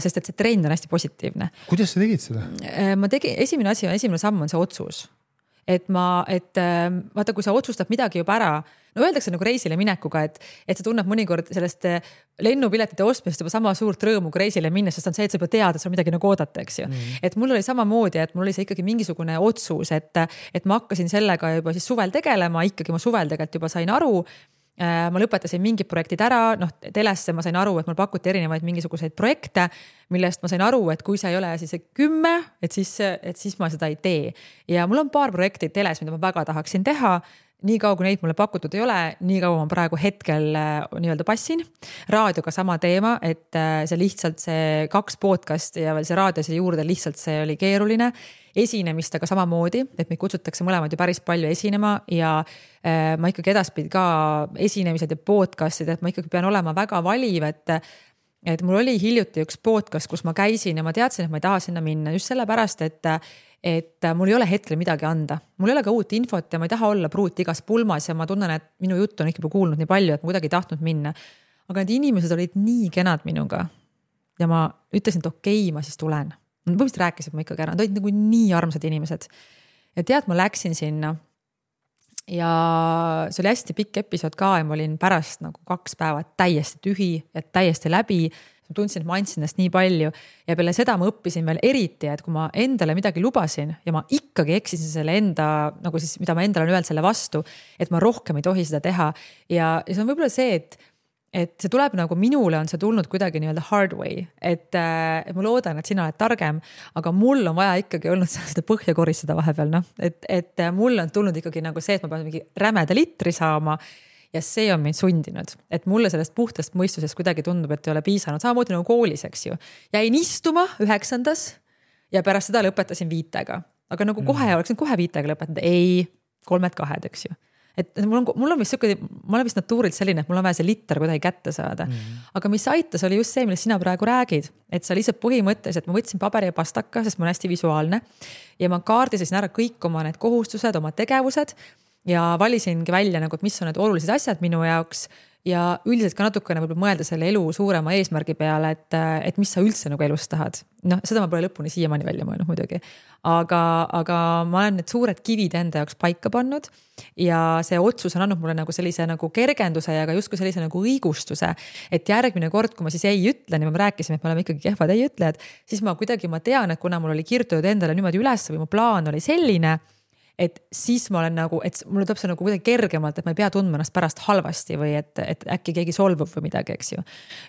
sest et see trend on hästi positiivne. Kuidas sa tegid seda? Esimene samm on see otsus. Et vaata, kui sa otsustad midagi juba ära, no öeldakse nagu reisile minekuga, et sa tunned mõnikord sellest lennupiletite ostmist juba sama suurt rõõmu kui reisile minnes, sest on see, et sa juba tead, et sa midagi nagu oodata, eks ju. Et mul oli samamoodi, et mul oli see ikkagi mingisugune otsus, et ma hakkasin sellega juba siis suvel tegelema, ikkagi ma suvel tegelikult juba sain aru. Ma lõpetasin mingid projektid ära, telesse ma sain aru, et mul pakuti erinevaid mingisuguseid projekte, millest ma sain aru, et kui see ei ole siis 10, et siis ma seda ei tee. Ja mul on paar projekti teles, mida ma väga tahaksin teha. Nii kaua, kui neid mulle pakutud ei ole, nii kaua ma praegu hetkel nii-öelda passin. Raadioga sama teema, et see lihtsalt see 2 podcast ja veel see raadiose juurde lihtsalt see oli keeruline. Esinemistega samamoodi, et meid kutsutakse mõlemad ju päris palju esinema ja ma ikkagi edaspidi ka esinemised ja podcastid, et ma ikkagi pean olema väga valiv, et mul oli hiljuti üks podcast, kus ma käisin ja ma teadsin, et ma ei taha sinna minna just sellepärast, et mul ei ole hetkel midagi anda. Mul ei ole ka uut infot ja ma ei taha olla pruut igas pulmas ja ma tunnen, et minu juttu on ikka kuulnud nii palju, et ma kuidagi ei tahtnud minna. Aga need inimesed olid nii kenad minuga ja ma ütlesin, et okei, ma siis tulen. Põhimõtteliselt rääkisid ma ikkagi ära, nad olid nagu nii armsad inimesed. Ja tead, ma läksin sinna ja see oli hästi pikk episood ka ja ma olin pärast nagu 2 päeva täiesti tühi ja täiesti läbi. Ma tundsin, et ma andsin ennast nii palju ja peale seda ma õppisin veel eriti, et kui ma endale midagi lubasin ja ma ikkagi eksisin selle enda, nagu siis, mida ma endale on öelnud selle vastu, et ma rohkem ei tohi seda teha. Ja see on võib-olla see, et see tuleb nagu minule on see tulnud kuidagi nii-öelda hard way, et ma loodan, et sina oled targem, aga mul on vaja ikkagi olnud seda põhja koristada vahepeal, et mul on tulnud ikkagi nagu see, et ma pean mingi rämeda litri saama ja see on mind sundinud, et mulle sellest puhtast mõistusest kuidagi tundub, et ei ole piisanud, samamoodi nagu koolis, eks ju. Jäin istuma 9. ja pärast seda lõpetasin 5, aga nagu kohe oleksin kohe 5 lõpetanud, ei 3-2, eks ju. et mul on vist siuke, ma olen vist natuurilt selline, et mul on vaja see liter kuidagi kätte saada. Aga mis aitas, oli just see, millest sina praegu räägid, et sa lihtsalt põhimõtteliselt, ma võtsin paberi ja pastaka, sest ma olen hästi visuaalne ja ma kaardisesin ära kõik oma need kohustused, oma tegevused ja valisingi välja nagu, et mis on need olulised asjad minu jaoks ja üldiselt ka natukene võib-olla mõelda selle elu suurema eesmärgi peale, et mis sa üldse nagu elus tahad. Noh, seda ma pole lõpuni siiamaani välja mõelnud muidugi. Aga ma olen need suured kivid enda jaoks paika pannud ja see otsus on andnud mulle nagu sellise nagu kergenduse ja ka justkui sellise nagu õigustuse, et järgmine kord, kui ma siis ei ütlen ja me rääkisime, et me oleme ikkagi kehvad ei ütlejad, siis ma tean, et kuna mul oli kirjutatud endale niimoodi üles või mu plaan oli selline, et siis ma olen nagu, et mulle tuleb see nagu kuidagi kergemalt, et ma ei pea tundma ennast pärast halvasti või et äkki keegi solvub või midagi, eks ju.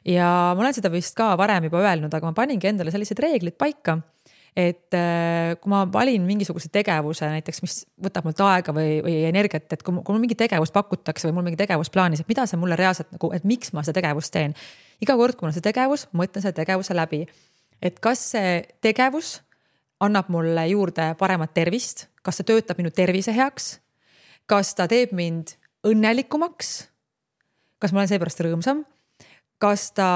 Ja ma olen seda vist ka varem juba öelnud, aga ma paningi endale sellised reeglid paika, et kui ma valin mingisuguse tegevuse näiteks, mis võtab mult aega või energiat, et kui mul mingi tegevus pakutakse või mul mingi tegevus plaanis, et mida see mulle reaalselt nagu, et miks ma seda tegevust teen. Iga kord, kui mul on see tegevus, ma mõtlen selle tegevuse läbi, et kas see tegevus annab mulle juurde paremat tervist, kas ta töötab minu tervise heaks, kas ta teeb mind õnnelikumaks, kas ma olen seepärast rõõmsam, kas ta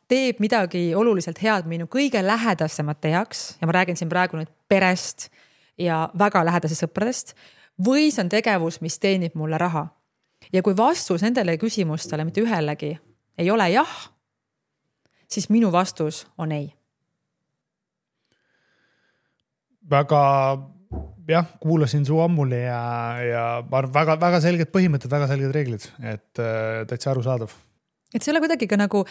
teeb midagi oluliselt head minu kõige lähedasemate heaks ja ma räägin siin praegu nüüd perest ja väga lähedasest sõpradest või see on tegevus, mis teenib mulle raha. Ja kui vastus nendele küsimustele mitte ühelegi ei ole jah, siis minu vastus on ei. Väga, jah, kuulasin su ammuli ja väga selged põhimõtted, väga selged reeglid, et täitsa arusaadav. Et see ei ole kuidagi ka nagu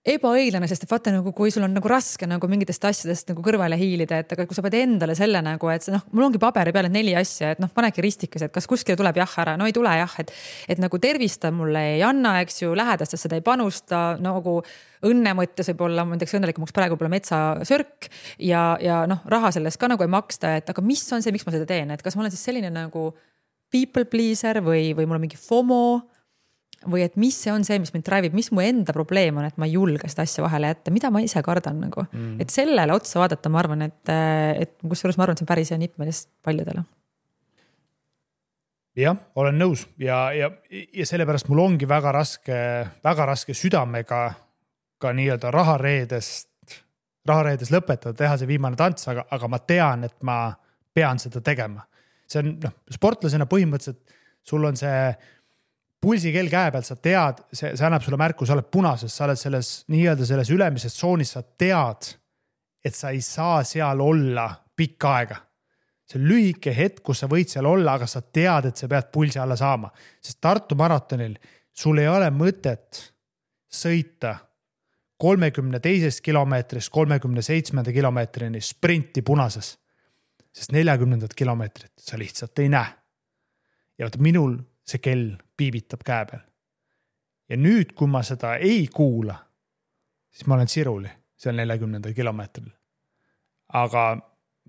ebaõiglane, sest et vaata nagu, kui sul on nagu raske nagu mingitest asjadest nagu kõrvale hiilida, et aga kui sa pead endale selle nagu, et see, mul ongi paberi peal 4 asja, et panegi ristikas, et kas kuskile tuleb jah ära, no ei tule jah, et nagu tervista mulle ei anna, eks ju, lähedastest seda ei panusta, nagu õnne mõttes võib olla, ma näiteks õnnelikumaks praegu pole metsasörk ja raha sellest ka nagu ei maksta, et aga mis on see, miks ma seda teen, et kas ma olen siis selline nagu people pleaser või mul on mingi FOMO või et mis see on see, mis mind drive'ib, mis mu enda probleem on, et ma ei julge seda asja vahele jätta, mida ma ise kardan nagu. Et sellele otsa vaadata, ma arvan, et kusjuures ma arvan, et see on päris hea nipp meelest paljudele. Jah, olen nõus ja sellepärast mul ongi väga raske südamega ka nii-öelda rahareedes lõpetada, teha see viimane tants, aga ma tean, et ma pean seda tegema. See on sportlasena põhimõtteliselt, sul on see pulsikell käe peal, sa tead, see annab sulle märku, sa oled punases, sa oled selles ülemises tsoonis, sa tead, et sa ei saa seal olla pikka aega. See on lühike hetk, kus sa võid seal olla, aga sa tead, et sa pead pulsi alla saama. Sest Tartu maratonil sul ei ole mõtet sõita 32 kilomeetrist 37 kilomeetrini sprinti punases. Sest 40 kilomeetrit sa lihtsalt ei näe. Ja minul see kell piibitab käe peal. Ja nüüd, kui ma seda ei kuula, siis ma olen siruli seal 40 kilomeetril. Aga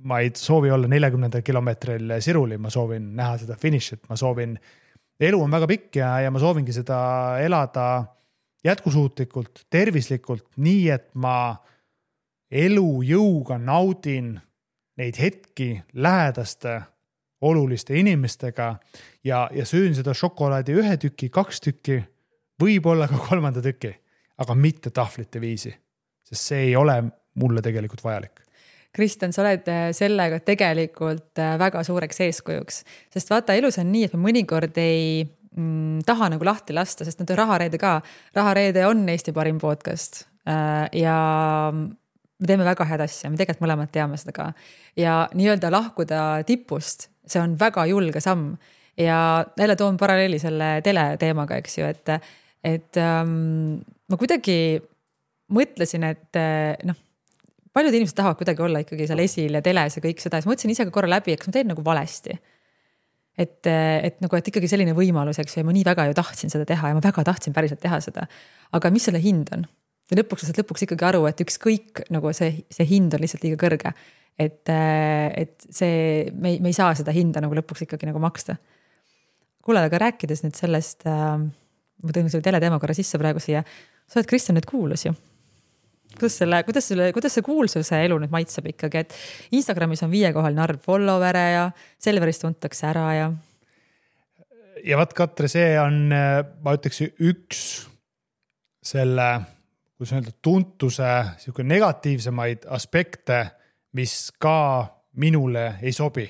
ma ei soovi olla 40 kilomeetril siruli, ma soovin näha seda finišit, ma soovin, elu on väga pikk ja ma soovingi seda elada jätkusuutlikult, tervislikult, nii et ma elujõuga naudin neid hetki lähedaste oluliste inimestega ja söön seda šokolaadi 1 tüki, 2 tükki, võib-olla ka 3. tüki, aga mitte tahvlite viisi, sest see ei ole mulle tegelikult vajalik. Kristjan, sa oled sellega tegelikult väga suureks eeskujuks, sest vaata, elus on nii, et me mõnikord ei taha nagu lahti lasta, sest nüüd on Rahareede ka. Rahareede on Eesti parim podcast ja me teeme väga head asja, me tegelikult mõlemad teame seda ka. Ja nii-öelda lahkuda tipust, see on väga julge samm ja jälle toon paralleeli selle teleteemaga, eks ju, et ma kuidagi mõtlesin, et paljud inimesed tahavad kuidagi olla ikkagi seal esil ja teles ja kõik seda, ja ma mõtlesin ise ka korra läbi, et ma teen nagu valesti. Et ikkagi selline võimalus, eks ju, ja ma nii väga ju tahtsin seda teha ja ma väga tahtsin päriselt teha seda. Aga mis selle hind on? Ja lõpuks ikkagi aru, et ükskõik nagu see hind on lihtsalt liiga kõrge. Et see, me ei saa seda hinda nagu lõpuks ikkagi nagu maksta. Kuule, aga rääkides nüüd sellest, ma tõin selle teleteema korra sisse praegu siia, sa oled Kristjan nüüd kuulus ju. Kuidas see kuulsuse elu nüüd maitseb ikkagi, et Instagramis on 5-kohaline arv followere ja Selverist tuntakse ära ja... ja vaat Katre, see on, ma ütleks üks selle, kuidas öelda, tuntuse negatiivsemaid aspekte, mis ka minule ei sobi.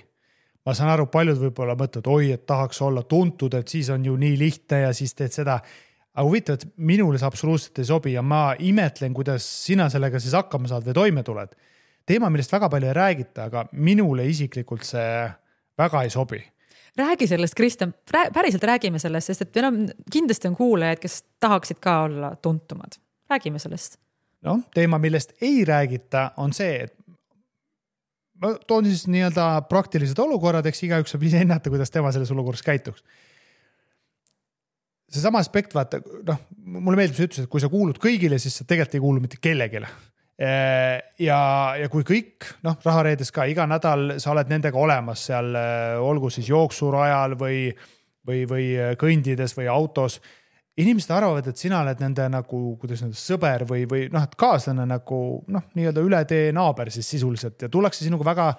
Ma saan aru, paljud võib-olla mõtled, oi, et tahaks olla tuntud, et siis on ju nii lihtne ja siis teed seda. Aga huvitav, et minule see absoluutselt ei sobi ja ma imetlen, kuidas sina sellega siis hakkama saad või toime tuled. Teema, millest väga palju ei räägita, aga minule isiklikult see väga ei sobi. Räägi sellest, Kristjan, päriselt räägime sellest, sest et kindlasti on kuulajaid, kes tahaksid ka olla tuntumad. Räägime sellest. No, teema, millest ei räägita, on see, et ma toon siis nii-öelda praktilised olukorrad, eks igaüks saab ise ennata, kuidas tema selles olukorras käituks. See sama aspekt, vaata, mulle meeldib, sa ütles, et kui sa kuulud kõigile, siis sa tegelikult ei kuulu mitte kellegile. Ja kui kõik, rahareedes ka iga nädal sa oled nendega olemas seal, olgu siis jooksurajal või kõndides või autos, inimesed arvavad, et sina oled nende nagu, kuidas nende sõber või et kaaslane nagu, nii-öelda üle tee naaber siis sisuliselt ja tullakse sinuga väga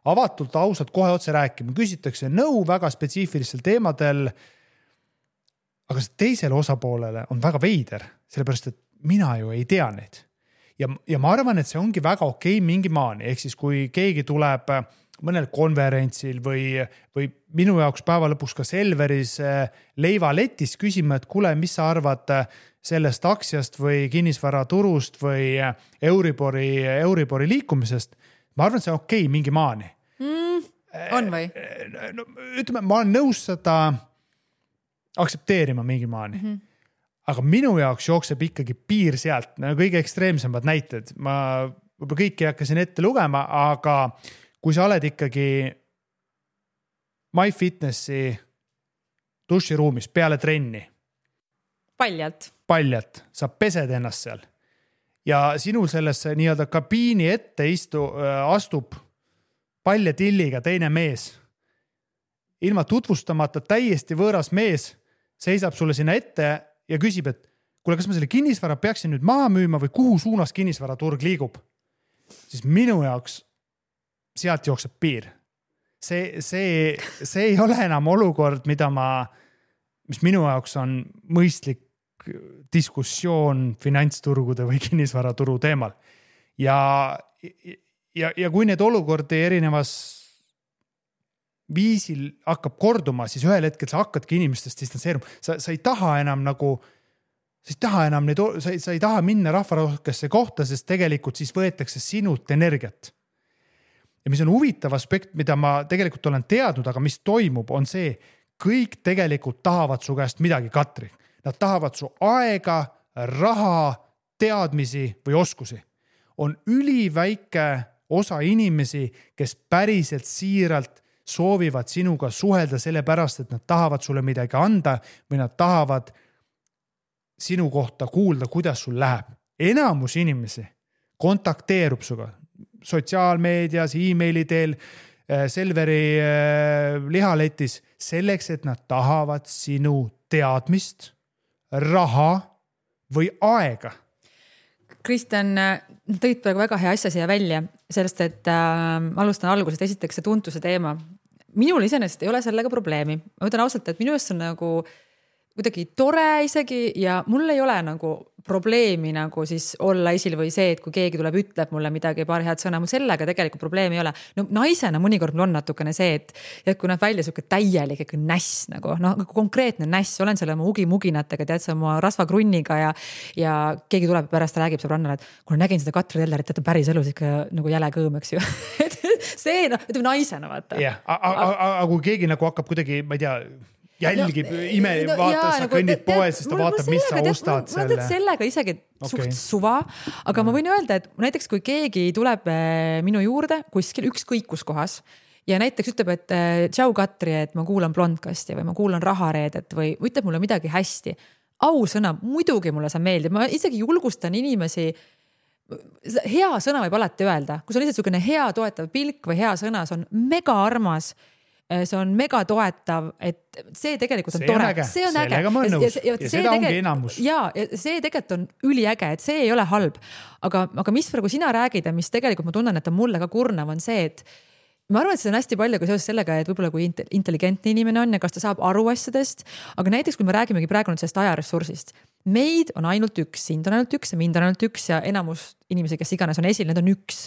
avatult, ausalt kohe otse rääkima, küsitakse nõu väga spetsiifilistel teemadel. Aga see teisele osapoolele on väga veider, sellepärast, et mina ju ei tea neid. Ja ma arvan, et see ongi väga okei mingi maani, ehk siis kui keegi tuleb mõnel konverentsil või minu jaoks päeva lõpuks ka Selveris leivaletis küsima, et kuule, mis sa arvad sellest aktsiast või kinnisvaraturust või Euribori liikumisest. Ma arvan, et see on okei mingi maani. On või? No, ütleme, ma olen nõus seda aksepteerima mingi maani. Aga minu jaoks jookseb ikkagi piir sealt, kõige ekstreemsemad näited. Ma võib-olla kõiki hakkasin ette lugema, aga kui sa oled ikkagi MyFitnessi duširuumis peale trenni. Paljalt. Sa pesed ennast seal. Ja sinul sellesse nii-öelda kabiini ette astub paljatilliga teine mees. Ilma tutvustamata täiesti võõras mees seisab sulle sinna ette ja küsib, et kuule, kas ma selle kinnisvara peaksin nüüd maha müüma või kuhu suunas kinnisvaraturg liigub? Siis minu jaoks sealt jookseb piir. See ei ole enam olukord, mis minu jaoks on mõistlik diskussioon finantsturgude või kinnisvaraturu teemal. Ja kui need olukordi erinevas viisil hakkab korduma, siis ühel hetkel sa hakkadki inimestest distantseeruma. Sa ei taha enam sa ei taha minna rahvarohkesse kohta, sest tegelikult siis võetakse sinult energiat. Ja mis on huvitav aspekt, mida ma tegelikult olen teadnud, aga mis toimub, on see, kõik tegelikult tahavad su käest midagi, Katri. Nad tahavad su aega, raha, teadmisi või oskusi. On üliväike osa inimesi, kes päriselt siiralt soovivad sinuga suhelda sellepärast, et nad tahavad sulle midagi anda või nad tahavad sinu kohta kuulda, kuidas sul läheb. Enamus inimesi kontakteerub suga sotsiaalmeedias, e-maili teel, Selveri lihaletis selleks, et nad tahavad sinu teadmist, raha või aega. Kristjan, tõid praegu väga hea asja siia välja, sellest, et alustan algusest, esiteks see tuntuse teema. Minul iseenesest ei ole sellega probleemi. Ma ütlen ausalt, et minu eest on nagu kuidagi tore isegi ja mul ei ole nagu probleemi nagu siis olla esil või see, et kui keegi tuleb, ütleb mulle midagi, paar head sõna, mul sellega tegelikult probleemi ei ole. No naisena mõnikord mul on natukene see, et kui näeb välja selline täielik näss, nagu konkreetne näss, olen selle oma ugimuginatega, tead sa oma rasvakrunniga ja keegi tuleb pärast räägib sõbrannale, et kui nägin seda Katri Tellerit, et on päris elus ikka nagu jäle kõõm, eks ju. See, ütleme naisena, vaata. Jah, aga kui keegi nagu hakkab kuidagi, ma ei tea, jälgib, vaata, sa kõnnid poes, siis ta vaatab, mis sa ostad selle. Ma sellega isegi suht suva, aga ma võin öelda, et näiteks kui keegi tuleb minu juurde kuskil ükskõikus kohas ja näiteks ütleb, et tšau Katri, et ma kuulan Blondkasti või ma kuulan Rahareedet või ütleb mulle midagi hästi. Ausõna, muidugi mulle see meeldib. Ma isegi julgustan inimesi, hea sõna võib alati öelda. Kui see on lihtsalt selline hea toetav pilk või hea sõna, see on mega armas, see on mega toetav, et see tegelikult on tore. See on äge. Sellega ma olen nõus. Ja seda ongi enamus. Ja see tegelikult on üliäge, et see ei ole halb. Aga mis praegu sina räägid ja mis tegelikult ma tunnen, et on mulle ka kurnav, on see, et ma arvan, et see on hästi palju ka seoses sellega, et võib-olla kui intelligentne inimene on ja kas ta saab aru asjadest, aga näiteks kui me räägimegi praegu nüüd sellest ajaressursist, meid on ainult üks, sind on ainult üks ja mind on ainult üks ja enamus inimesi, kes iganes on esil, need on üks.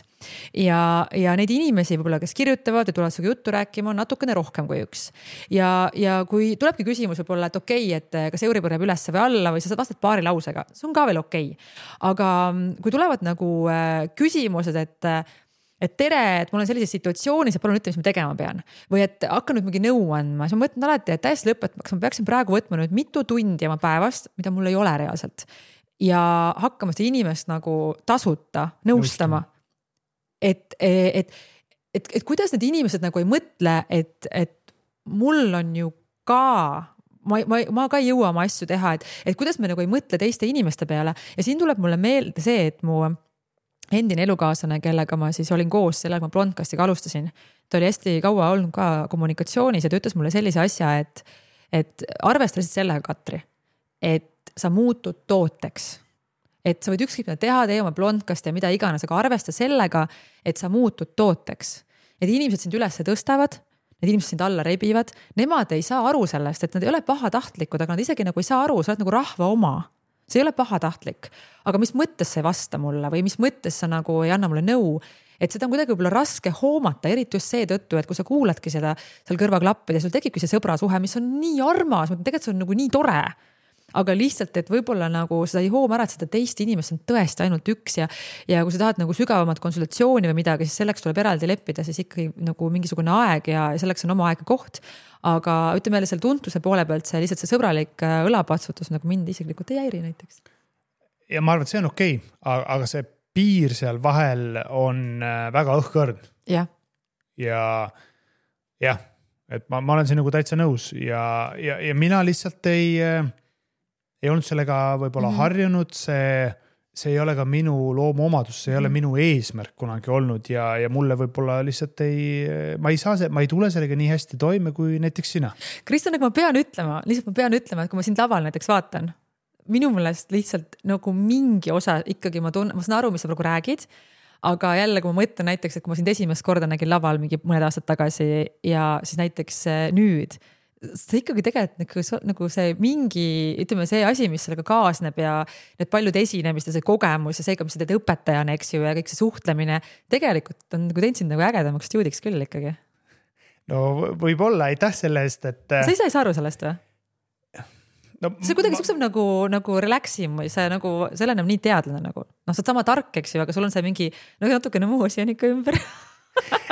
Ja neid inimesi võib-olla, kes kirjutavad ja tulevad sinuga juttu rääkima, on natukene rohkem kui üks. Ja kui tulebki küsimus võib-olla, et okei, et kas Euribor jääb üles või alla või sa vastad paari lausega, see on ka veel okei. Aga kui tulevad nagu küsimused, et tere, et mul on sellises situatsioonis ja palun ütle, mis ma tegema pean. Või et hakka nüüd mingi nõu andma. Siis ma mõtlen alati, et täiesti lõpetama, kas ma peaksin praegu võtma nüüd mitu tundi oma päevast, mida mul ei ole reaalselt. Ja hakkama seda inimest nagu tasuta nõustama. Et kuidas need inimesed nagu ei mõtle, et mul on ju ka, ma ka ei jõua oma asju teha, et kuidas me nagu ei mõtle teiste inimeste peale. Ja siin tuleb mulle meelde see, et mu endine elukaaslane, kellega ma siis olin koos, sellega ma Blondcastiga alustasin. Ta oli hästi kaua olnud ka kommunikatsioonis ja ta ütles mulle sellise asja, et arvestasid sellega, Katri, et sa muutud tooteks. Et sa võid ükskõik teha, tee oma Blondcasti ja mida iganes, aga arvesta sellega, et sa muutud tooteks. Et inimesed sind üles tõstavad, need inimesed sind alla rebivad, nemad ei saa aru sellest, et nad ei ole pahatahtlikud, aga nad isegi nagu ei saa aru, sa oled nagu rahva oma. See ei ole pahatahtlik, aga mis mõttes see vasta mulle või mis mõttes sa nagu ei anna mulle nõu, et seda on kuidagi võib-olla raske hoomata, eriti just seetõttu, et kui sa kuuladki seda seal kõrvaklappida, sul tekibki see sõbrasuhe, mis on nii armas, tegelikult see on nagu nii tore, aga lihtsalt, et võib-olla nagu seda ei hooma ära, et seda teist inimest on tõesti ainult üks ja kui sa tahad nagu sügavamat konsultatsiooni või midagi, siis selleks tuleb eraldi leppida, siis ikkagi nagu mingisugune aeg ja selleks on oma aeg ja koht. Aga ütleme jälle selle tuntuse poole pealt see lihtsalt see sõbralik õlapatsutus nagu mind isiklikult ei häiri näiteks. Ja ma arvan, et see on okei, aga see piir seal vahel on väga õhkõrn. Ja, et ma olen siin nagu täitsa nõus ja mina lihtsalt ei olnud sellega võib-olla harjunud, see ei ole ka minu loomuomadus, see ei ole minu eesmärk kunagi olnud ja mulle võib-olla lihtsalt ma ei tule sellega nii hästi toime kui näiteks sina. Kristjan, aga ma pean ütlema, et kui ma sind laval näiteks vaatan, minu meelest lihtsalt nagu mingi osa ikkagi ma saan aru, mis sa praegu räägid, aga jälle, kui ma mõtlen näiteks, et kui ma sind esimest korda nägin laval mingi mõned aastad tagasi ja siis näiteks nüüd, see ikkagi tegelikult nagu see mingi, ütleme see asi, mis sellega kaasneb ja need paljud esinemist ja see kogemus ja see, mis sa teed õpetajana, eks ju, ja kõik see suhtlemine, tegelikult on nagu teinud sind nagu ägedamaks stuudiks küll ikkagi. No võib-olla, aitäh selle eest, et... Sa ise ei saa aru sellest või? No, see kuidagi sukseb nagu relaxim või see nagu, selle enam nii teadlane nagu. Sa oled sama tark, eks ju, aga sul on see mingi natukene muusi on ikka ümber.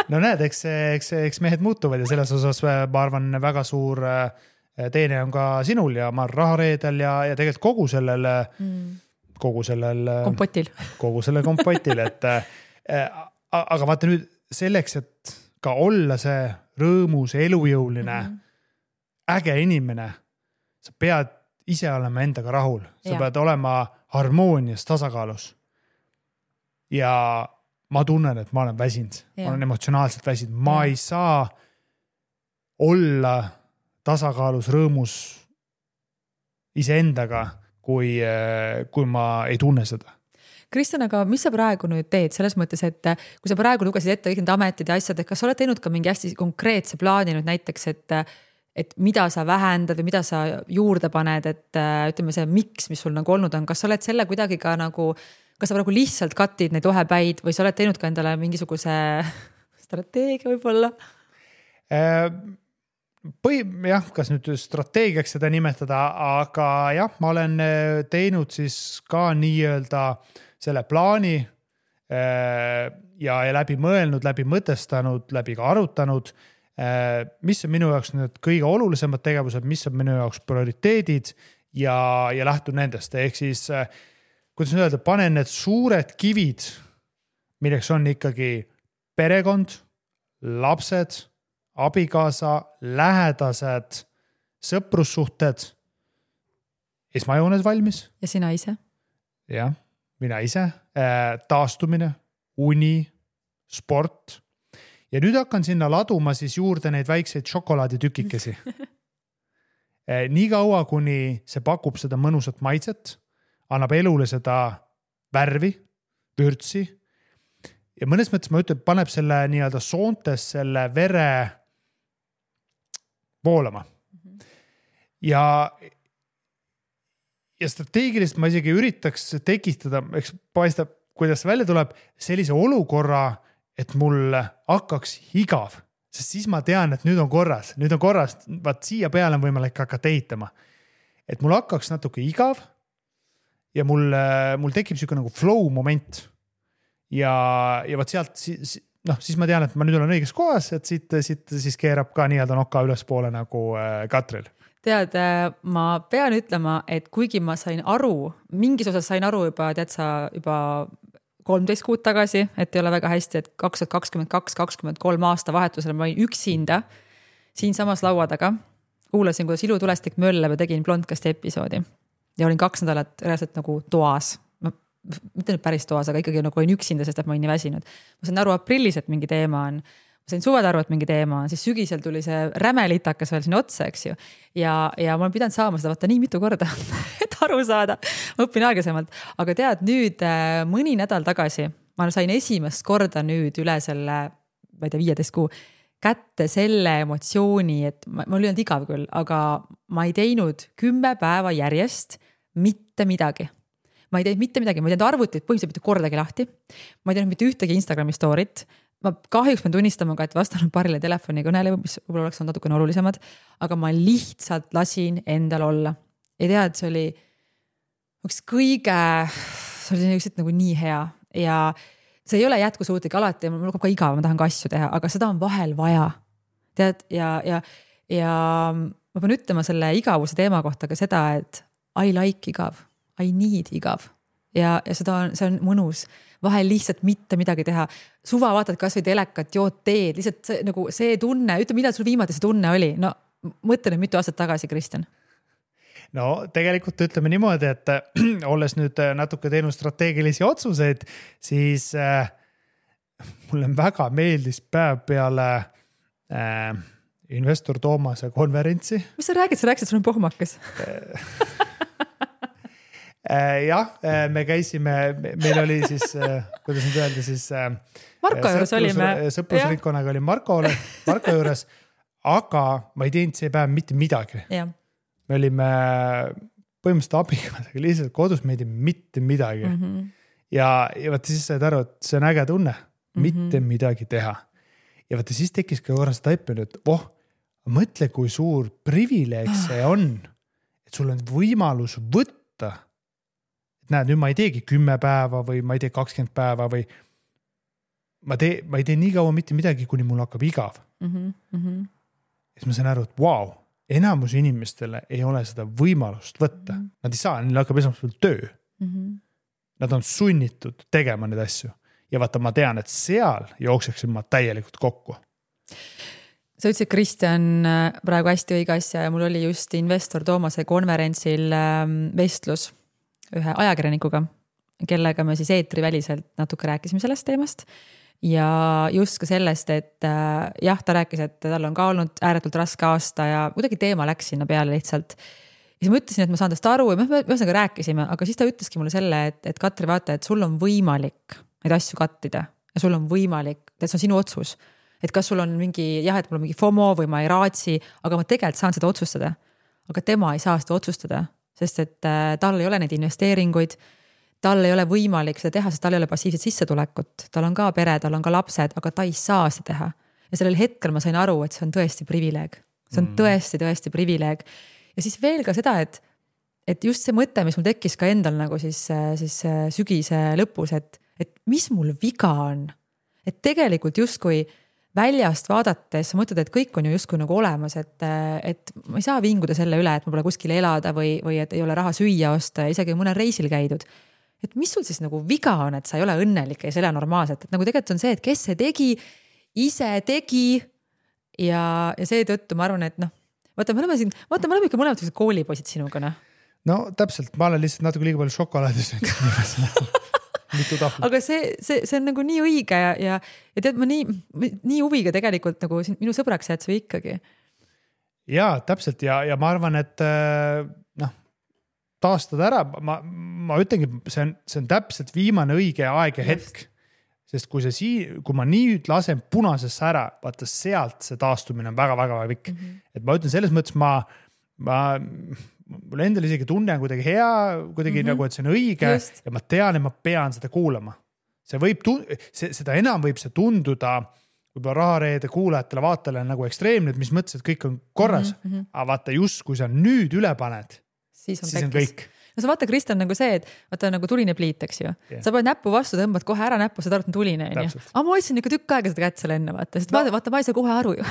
No näed, eks mehed muutuvad ja selles osas ma arvan väga suur teene on ka sinul ja ma rahareedel ja tegelikult kogu sellel kompotil, et aga vaata nüüd selleks, et ka olla see rõõmus, elujõuline, äge inimene, sa pead ise olema endaga rahul, sa pead olema harmoonias, tasakaalus ja ma tunnen, et ma olen väsinud, ma olen emotsionaalselt väsinud, ma ei saa olla tasakaalus, rõõmus iseendaga, kui ma ei tunne seda. Kristjan, aga mis sa praegu nüüd teed selles mõttes, et kui sa praegu lugesid ette kõik need ametid ja asjad, et kas sa oled teinud ka mingi hästi konkreetse plaani nüüd näiteks, et mida sa vähendad või mida sa juurde paned, et ütleme see miks, mis sul nagu olnud on, kas sa oled selle kuidagi ka nagu kas sa praegu lihtsalt katid neid ohepäid või sa oled teinud ka endale mingisuguse strateegia võib-olla? Kas nüüd strateegiaks seda nimetada, aga jah, ma olen teinud siis ka nii-öelda selle plaani ja läbi mõelnud, läbi mõtestanud, läbi ka arutanud, mis on minu jaoks need kõige olulisemad tegevused, mis on minu jaoks prioriteedid ja lähtun nendest. Ehk siis kuidas öelda, panen need suured kivid, milleks on ikkagi perekond, lapsed, abikaasa, lähedased, sõprussuhted, esmajoones valmis. Ja sina ise? Jah, mina ise, taastumine, uni, sport. Ja nüüd hakkan sinna laduma siis juurde neid väikseid šokolaaditükikesi. Nii kaua, kuni see pakub seda mõnusat maitset, annab elule seda värvi, vürtsi ja mõnes mõttes ma ütlen, paneb selle nii-öelda soontes selle vere voolama. Ja strateegiliselt ma isegi üritaks tekitada, eks paistab, kuidas välja tuleb sellise olukorra, et mul hakkaks igav, sest siis ma tean, et nüüd on korras, vaat siia peale on võimalik hakata ehitama. Et mul hakkaks natuke igav ja mul tekib selline nagu flow moment ja vaat sealt siis ma tean, et ma nüüd olen õiges kohas, et siit siis keerab ka nii-öelda noka ülespoole nagu Katril. Tead, ma pean ütlema, et kuigi ma sain aru, mingis osas sain aru juba 13 kuud tagasi, et ei ole väga hästi, et 2022-2023 aasta vahetusel ma olin üksinda siin samas laua taga. Kuulasin, kuidas ilutulestik mölleb ja tegin blondkasti episoodi. Ja olin 2 nädalat reaalselt nagu toas. Mitte nüüd päris toas, aga ikkagi nagu olin üksinda, sest et ma olin nii väsinud. Ma sain aru aprillis, et mingi teema on. Ma sain suved aru, et mingi teema on. Siis sügisel tuli see rämelitakas veel siin otsa, eks ju. Ja ma olen pidanud saama seda vaata nii mitu korda, et aru saada. Ma õpin aeglasemalt. Aga tead, nüüd mõni nädal tagasi ma sain esimest korda nüüd üle selle, ma ei tea, 15 kuu kätte selle emotsiooni, et ma olin igav küll, aga ma ei teinud 10 päeva järjest mitte midagi. Ma ei teinud mitte midagi, ma ei teinud arvutit põhimõtteliselt mitte kordagi lahti. Ma ei teinud mitte ühtegi Instagrami story't. Ma kahjuks pean tunnistama ka, et vastanud paarile telefonikõnele, mis võib-olla oleks olnud natukene olulisemad, aga ma lihtsalt lasin endal olla. Ja tead, see oli lihtsalt nagu nii hea ja see ei ole jätkusuutlik alati ja mul ka igav, ma tahan ka asju teha, aga seda on vahel vaja. Tead, ja ma pean ütlema selle igavuse teema kohta ka seda, et I like igav. I need igav. Ja see on mõnus. Vahel lihtsalt mitte midagi teha. Suva vaatad kas või telekat, jood teed, lihtsalt nagu see tunne, ütle, millal sul viimati see tunne oli? No mõtle nüüd mitu aastat tagasi, Kristjan. No tegelikult ütleme niimoodi, et olles nüüd natuke teinud strateegilisi otsuseid, siis mulle väga meeldis päev peale investor Toomase konverentsi. Mis sa räägid? Sa rääksid, sul on pohmakas. Jah, me käisime, meil oli siis, kuidas nüüd öelda, siis Marko juures olime. Sõprusringkonnaga oli Marko juures, aga ma ei teinud see päev mitte midagi. Ja. Me olime põhimõtteliselt abiga lihtsalt kodus, me ei teinud mitte midagi. Ja vaata siis said aru, et see on äge tunne, mitte midagi teha. Ja vaata siis tekkis ka korras taipenu, et mõtle, kui suur privileeg see on, et sul on võimalus võtta. Näed, nüüd ma ei teegi 10 päeva või ma ei tee 20 päeva või ma ei tee nii kaua mitte midagi, kuni mul hakkab igav. Siis ma sain aru, et wow, enamus inimestele ei ole seda võimalust võtta. Nad ei saa, neil hakkab esmaspäeval töö. Nad on sunnitud tegema neid asju. Ja vaata, ma tean, et seal jookseksin ma täielikult kokku. Sa ütlesid, Kristjan, praegu hästi õige asja ja mul oli just investor Toomase konverentsil vestlus ühe ajakirjanikuga, kellega me siis eetriväliselt natuke rääkisime sellest teemast ja just ka sellest, et jah, ta rääkis, et tal on ka olnud ääretult raske aasta ja kuidagi teema läks sinna peale lihtsalt. Ja siis ma ütlesin, et ma saan tast aru ja me ühesõnaga rääkisime, aga siis ta ütleski mulle selle, et Katri, vaata, et sul on võimalik neid asju kattida ja sul on võimalik, et see on sinu otsus. Et kas sul on mingi, jah, et mul on mingi FOMO või ma ei raatsi, aga ma tegelikult saan seda otsustada. Aga tema ei saa seda otsustada. Sest et tal ei ole neid investeeringuid, tal ei ole võimalik seda teha, sest tal ei ole passiivset sissetulekut. Tal on ka pere, tal on ka lapsed, aga ta ei saa seda teha. Ja sellel hetkel ma sain aru, et see on tõesti privileeg. See on tõesti privileeg. Ja siis veel ka seda, et just see mõte, mis mul tekkis ka endal nagu siis sügise lõpus, et mis mul viga on. Et tegelikult justkui väljast vaadates sa mõtled, et kõik on ju justkui nagu olemas, et ma ei saa vinguda selle üle, et ma pole kuskil elada või et ei ole raha süüa osta ja isegi mõnel reisil käidud. Et mis sul siis nagu viga on, et sa ei ole õnnelik ja ei ole normaalselt, et nagu tegelikult on see, et kes see tegi, ise tegi ja seetõttu ma arvan, et vaata, me oleme ikka mõlemad koolipoisid sinuga. No täpselt, ma olen lihtsalt natuke liiga palju šokolaadis aga see on nagu nii õige ja tead, ma nii huviga tegelikult nagu minu sõbraks jääd sa ikkagi. Jaa, täpselt ja ma arvan, et taastada ära, ma ütlengi, see on täpselt viimane õige aeg ja hetk. sest kui ma nüüd lasen punasesse ära, vaata sealt see taastumine on väga-väga pikk. Et ma ütlen selles mõttes, mul endal isegi tunne on kuidagi hea, kuidagi nagu, et see on õige just. Ja ma tean, et ma pean seda kuulama. Seda enam võib see tunduda võib-olla Rahareede kuulajatele, vaatajale nagu ekstreemne, mis mõttes, et kõik on korras. Aga vaata just, kui sa nüüd üle paned, siis on kõik. No sa vaata, Kristjan, nagu see, et vaata nagu tuline pliit, eks ju. Yeah. Sa paned näppu vastu, tõmbad kohe ära näppu, sa tarvitad tuline. Aga ma hoidsin ikka tükk aega seda kätt seal enne, vaata. Sest vaata, ma ei saa kohe aru ju.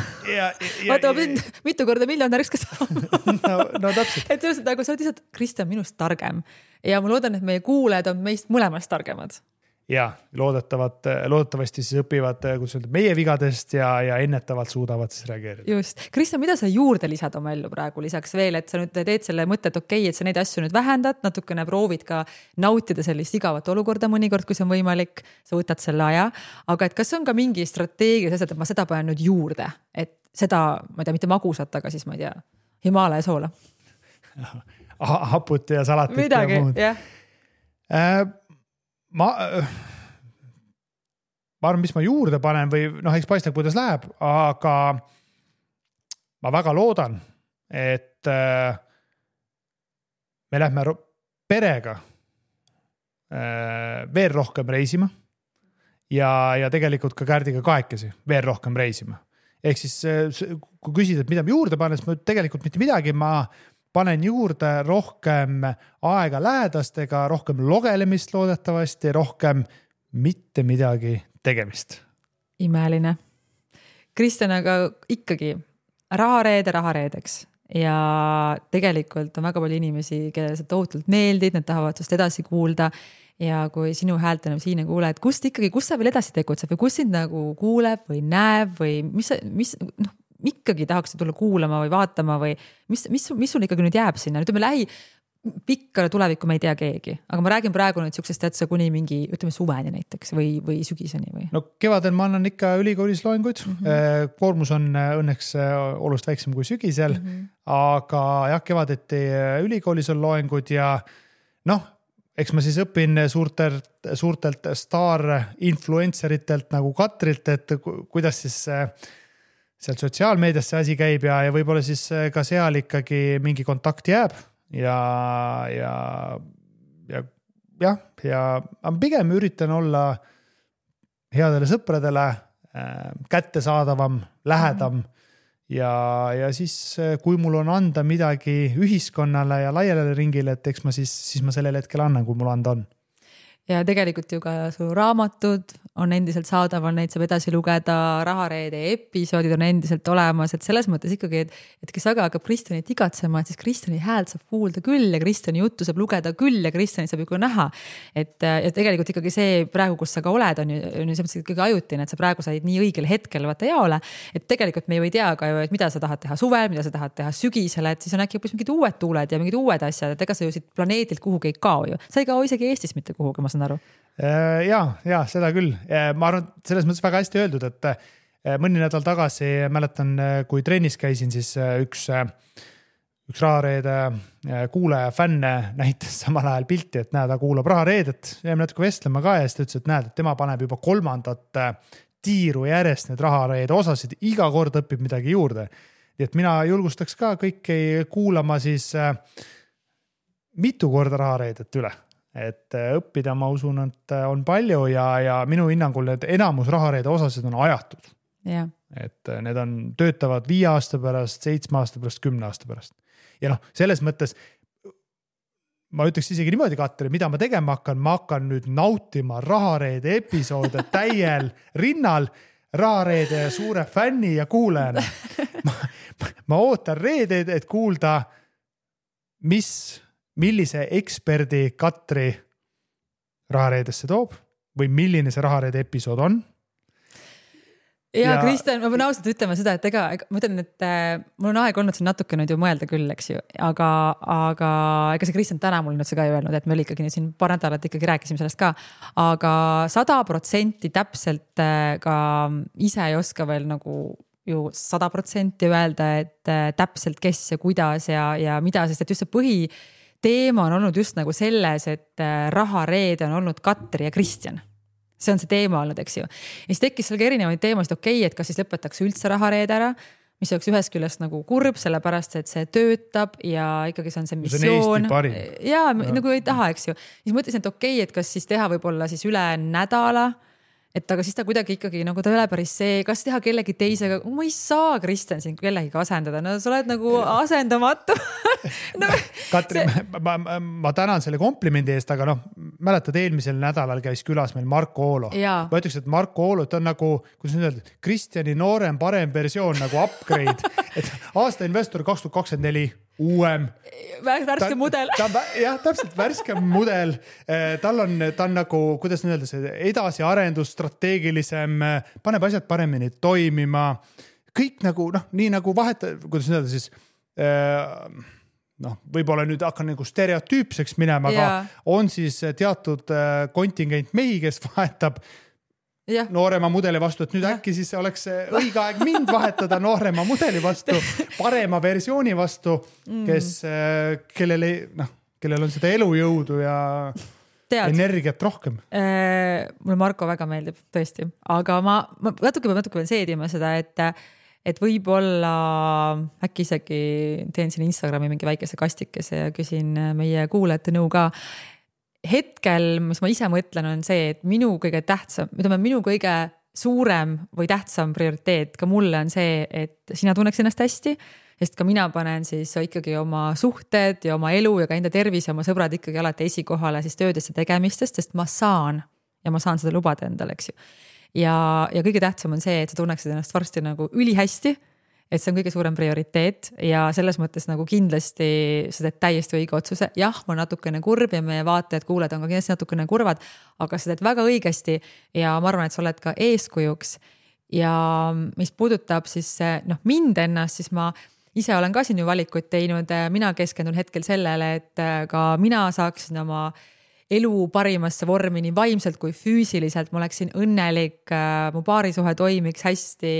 Vaata, ma pidin mitu korda miljonäriks ka saama. no täpselt. Et sellest, nagu sa oled lihtsalt, Kristjan, minust targem. Ja ma loodan, et meie kuulajad on meist mõlemast targemad. Ja loodetavasti siis õpivad meie vigadest ja ennetavalt suudavad siis reageerida. Just. Kristjan, mida sa juurde lisad oma ellu praegu lisaks veel, et sa nüüd teed selle mõtte, et okei, et sa neid asju nüüd vähendad, natukene proovid ka nautida sellist igavat olukorda mõnikord, kui see on võimalik, sa võtad selle aja, aga et kas on ka mingi strateegia, et ma seda panen nüüd juurde, et seda, ma ei tea, mitte magusat, aga siis ma ei tea, Himaalaja soola. Haput ja salatit midagi, ja muud. Jah. Ma arvan, mis ma juurde panen või eks paistab, kuidas läheb, aga ma väga loodan, et me lähme perega veel rohkem reisima ja tegelikult ka Kärdiga kahekesi veel rohkem reisima. Ehk siis, kui küsid, et mida ma juurde panen, siis ma tegelikult mitte midagi, ma panen juurde rohkem aega lähedastega, rohkem logelemist loodetavasti, rohkem mitte midagi tegemist. Imeline. Kristjan, aga ikkagi rahareedeks ja tegelikult on väga palju inimesi, kellele sa tohutult meeldid, nad tahavad sust edasi kuulda ja kui sinu häält enam siin ei kuule, et kus sa veel edasi tegutseb või kus sind nagu kuuleb või näeb või mis ikkagi tahaks tulla kuulama või vaatama või mis sul ikkagi nüüd jääb sinna? Ütleme, pikkale tulevikku me ei tea keegi, aga ma räägin praegu nüüd siuksest täitsa kuni mingi, ütleme suveni näiteks või sügiseni või? No kevadel ma annan ikka ülikoolis loenguid. Koormus on õnneks olust väiksem kui sügisel, aga jah, kevadeti ülikoolis on loengud ja eks ma siis õpin suurtelt staar-influenceritelt nagu Katrilt, et kuidas siis sealt sotsiaalmeedias see asi käib ja võib-olla siis ka seal ikkagi mingi kontakt jääb ja pigem üritan olla headele sõpradele kättesaadavam, lähedam ja siis, kui mul on anda midagi ühiskonnale ja laialele ringile, et eks ma siis ma sellel hetkel annan, kui mul anda on. Ja tegelikult ju ka su raamatud on endiselt saadaval, neid saab edasi lugeda, Rahareede episoodid on endiselt olemas, et selles mõttes ikkagi, et kes aga hakkab Kristjanit igatsema, et siis Kristjani häält saab kuulda küll ja Kristjani juttu saab lugeda küll ja Kristjanit saab ju näha. Et tegelikult ikkagi see praegu, kus sa ka oled, on ju see ikkagi ajutine, et sa praegu said nii õigel hetkel vaata jaole, et tegelikult me ju ei tea ka ju, et mida sa tahad teha suvel, mida sa tahad teha sügisel, et siis on äkki mingid uued tuuled ja mingid uued asjad, et ega sa ju siit planeedilt kuhugi ei kao ju. Sa ei kao isegi Eestis mitte kuhugi, ma saan aru. Ja seda küll. Ma arvan, selles mõttes väga hästi öeldud, et mõni nädal tagasi mäletan, kui trennis käisin, siis üks Rahareede kuulaja fänne näitas samal ajal pilti, et näed, ta kuulab Rahareedet. Jäime natuke vestlema ka ja siis ta ütles, et näed, et tema paneb juba 3. tiiru järjest need Rahareede osasid, iga kord õpib midagi juurde. Nii et mina julgustaks ka kõiki kuulama siis mitu korda Rahareedet üle. Et õppida, ma usun, et on palju ja minu hinnangul need enamus Rahareede osasid on ajatud. Ja. Et need töötavad 5 aasta pärast, 7 aasta pärast, 10 aasta pärast. Ja selles mõttes ma ütleks isegi niimoodi, Katri, mida ma tegema hakkan, ma hakkan nüüd nautima Rahareede episoode täiel rinnal Rahareede suure fänni ja kuulajana. Ma ootan reedeid, et kuulda, millise eksperdi Katri Rahareedesse toob või milline see Rahareede episood on. Ja Kristjan, ma pean ausalt ütlema seda, et ma ütlen, et mul on aeg olnud siin natuke nüüd ju mõelda küll, eks ju, aga ega see Kristjan täna mul nüüd see ka ei öelnud, et me oli ikkagi siin paar nädalat ikkagi rääkisime sellest ka, aga 100% täpselt ka ise ei oska veel nagu ju 100% öelda, et täpselt kes ja kuidas ja mida, sest et just see teema on olnud just nagu selles, et Rahareede on olnud Katri ja Kristjan. see on see teema olnud, eks ju. Ja siis tekkis seal ka erinevaid teemasid, et kas siis lõpetatakse üldse rahareede ära, mis oleks ühest küljest nagu kurb, sellepärast et see töötab ja ikkagi see on see missioon. Ja nagu ei taha, eks ju. Siis mõtlesin, et et kas siis teha võib-olla siis üle nädala, et aga siis ta kuidagi ikkagi nagu ta ei ole päris see, kas teha kellegi teisega, ma ei saa Kristjan siin kellegi asendada, no sa oled nagu asendamatu. No, Katri, ma tänan selle komplimendi eest, aga mäletad, eelmisel nädalal käis külas meil Marko Oolo. Ma ütleks, et Marko Oolo, ta on nagu, kuidas nüüd öelda, Kristjani noorem, parem versioon nagu upgrade, et aasta investor 2024 uuem. Värske mudel. Jah, täpselt värske mudel. Ta on nagu, kuidas nüüd öelda, see edasiarendus, strateegilisem, paneb asjad paremini toimima. Kõik nagu, nii nagu kuidas nüüd öelda siis, võib-olla nüüd hakkan nagu stereotüüpseks minema, aga on siis teatud kontingent mehi, kes vahetab noorema mudeli vastu, et nüüd äkki siis oleks õige aeg mind vahetada noorema mudeli vastu, parema versiooni vastu, kellel on seda elujõudu ja energiat rohkem. Mulle Marko väga meeldib, tõesti. Aga ma natuke veel seedima seda, et võib-olla äkki isegi teen siin Instagrami mingi väikese kastikese ja küsin meie kuulajate nõu ka. Hetkel, mis ma ise mõtlen, on see, et minu kõige suurem või tähtsam prioriteet ka mulle on see, et sina tunneks ennast hästi, sest ka mina panen siis ikkagi oma suhted ja oma elu ja ka enda tervis ja oma sõbrad ikkagi alati esikohale siis töödesse tegemistest, sest ma saan seda lubada endale, eks ju. Ja kõige tähtsam on see, et sa tunneksid ennast varsti nagu ülihästi, et see on kõige suurem prioriteet ja selles mõttes nagu kindlasti sa teed täiesti õige otsuse. Jah, ma natukene kurb ja meie vaatajad, kuuled on ka kindlasti natukene kurvad, aga sa teed väga õigesti ja ma arvan, et sa oled ka eeskujuks. Ja mis puudutab siis mind ennast, siis ma ise olen ka siin ju valikuid teinud. Mina keskendun hetkel sellele, et ka mina saaksin oma elu parimasse vormi nii vaimselt kui füüsiliselt, ma oleksin õnnelik, mu paarisuhe toimiks hästi,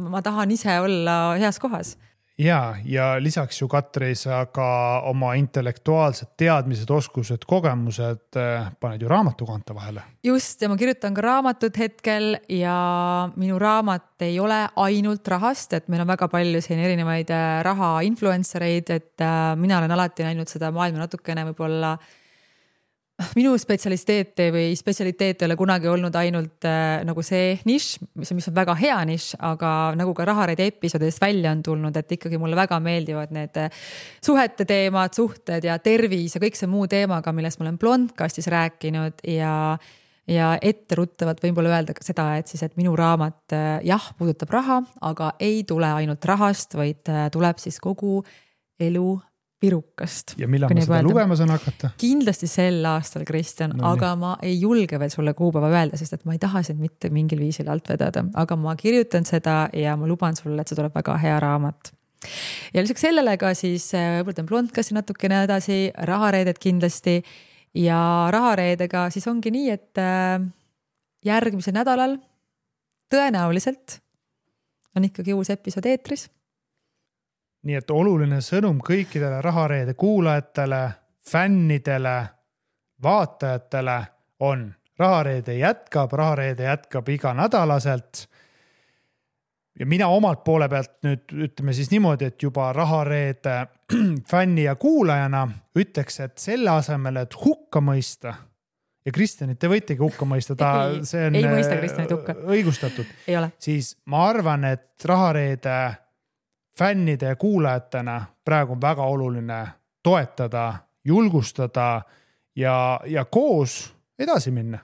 ma tahan ise olla heas kohas. Ja lisaks ju Katri, sa ka oma intellektuaalsed teadmised, oskused, kogemused paned ju raamatu kanta vahele. Just, ja ma kirjutan ka raamatut hetkel ja minu raamat ei ole ainult rahast, et meil on väga palju siin erinevaid raha influencereid, et mina olen alati näinud seda maailma natukene võib-olla minu spetsialiteet ei ole kunagi olnud ainult nagu see nišš, mis on väga hea nišš, aga nagu ka rahareide episoodidest välja on tulnud, et ikkagi mulle väga meeldivad need suhete teemad, suhted ja tervis ja kõik see muu teemaga, millest ma olen Blondcastis rääkinud ja etteruttavalt võib-olla öelda seda, et minu raamat puudutab raha, aga ei tule ainult rahast, vaid tuleb siis kogu elu pirukast. Ja millal ma seda lugema saan hakata? Kindlasti sel aastal, Kristjan, aga ma ei julge veel sulle kuupäeva öelda, sest et ma ei taha sind mitte mingil viisil alt vedada, aga ma kirjutan seda ja ma luban sulle, et see tuleb väga hea raamat. Ja lisaks sellele ka siis võtan Blondcasti natukene edasi, rahareeded kindlasti ja rahareedega siis ongi nii, et järgmisel nädalal tõenäoliselt on ikkagi uus episood eetris. Nii et oluline sõnum kõikidele rahareede kuulajatele, fännidele, vaatajatele on rahareede jätkab iga nädalaselt. Ja mina omalt poole pealt nüüd ütleme siis niimoodi, et juba rahareede fänni ja kuulajana ütleks, et selle asemel, et hukka mõista ja Kristjanit te võitegi hukka mõista, see on ei mõista Kristjanit hukka. Õigustatud. Ei ole. Siis ma arvan, et rahareede fännide ja kuulajatena praegu on väga oluline toetada, julgustada ja koos edasi minna.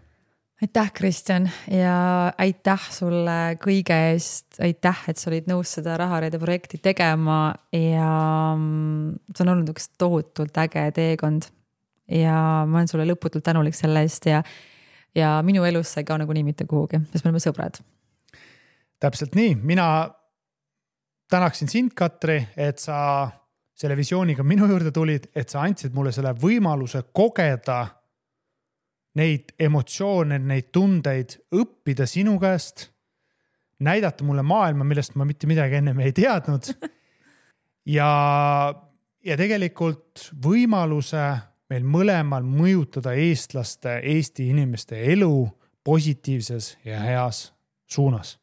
Aitäh, Kristjan, ja aitäh sulle kõige eest. Aitäh, et sa olid nõus seda rahareede projekti tegema ja see on olnud üks tohutult äge teekond ja ma olen sulle lõputult tänulik selle eest ja minu elus sai ka nagu nii mitte kuhugi, sest me oleme sõbrad. Täpselt nii, mina tänaksin sind, Katri, et sa selle visiooniga minu juurde tulid, et sa andsid mulle selle võimaluse kogeda neid emotsioone, neid tundeid, õppida sinu käest, näidata mulle maailma, millest ma mitte midagi ennem ei teadnud ja tegelikult võimaluse meil mõlemal mõjutada eestlaste, Eesti inimeste elu positiivses ja heas suunas.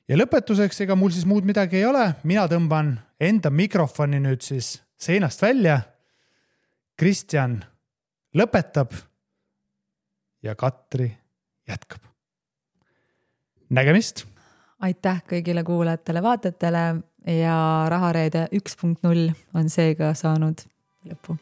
Ja lõpetuseks, ega mul siis muud midagi ei ole. Mina tõmban enda mikrofoni nüüd siis seinast välja. Kristjan lõpetab ja Katri jätkab. Nägemist! Aitäh kõigile kuulajatele, vaatajatele ja Rahareede 1.0 on seega saanud lõpu.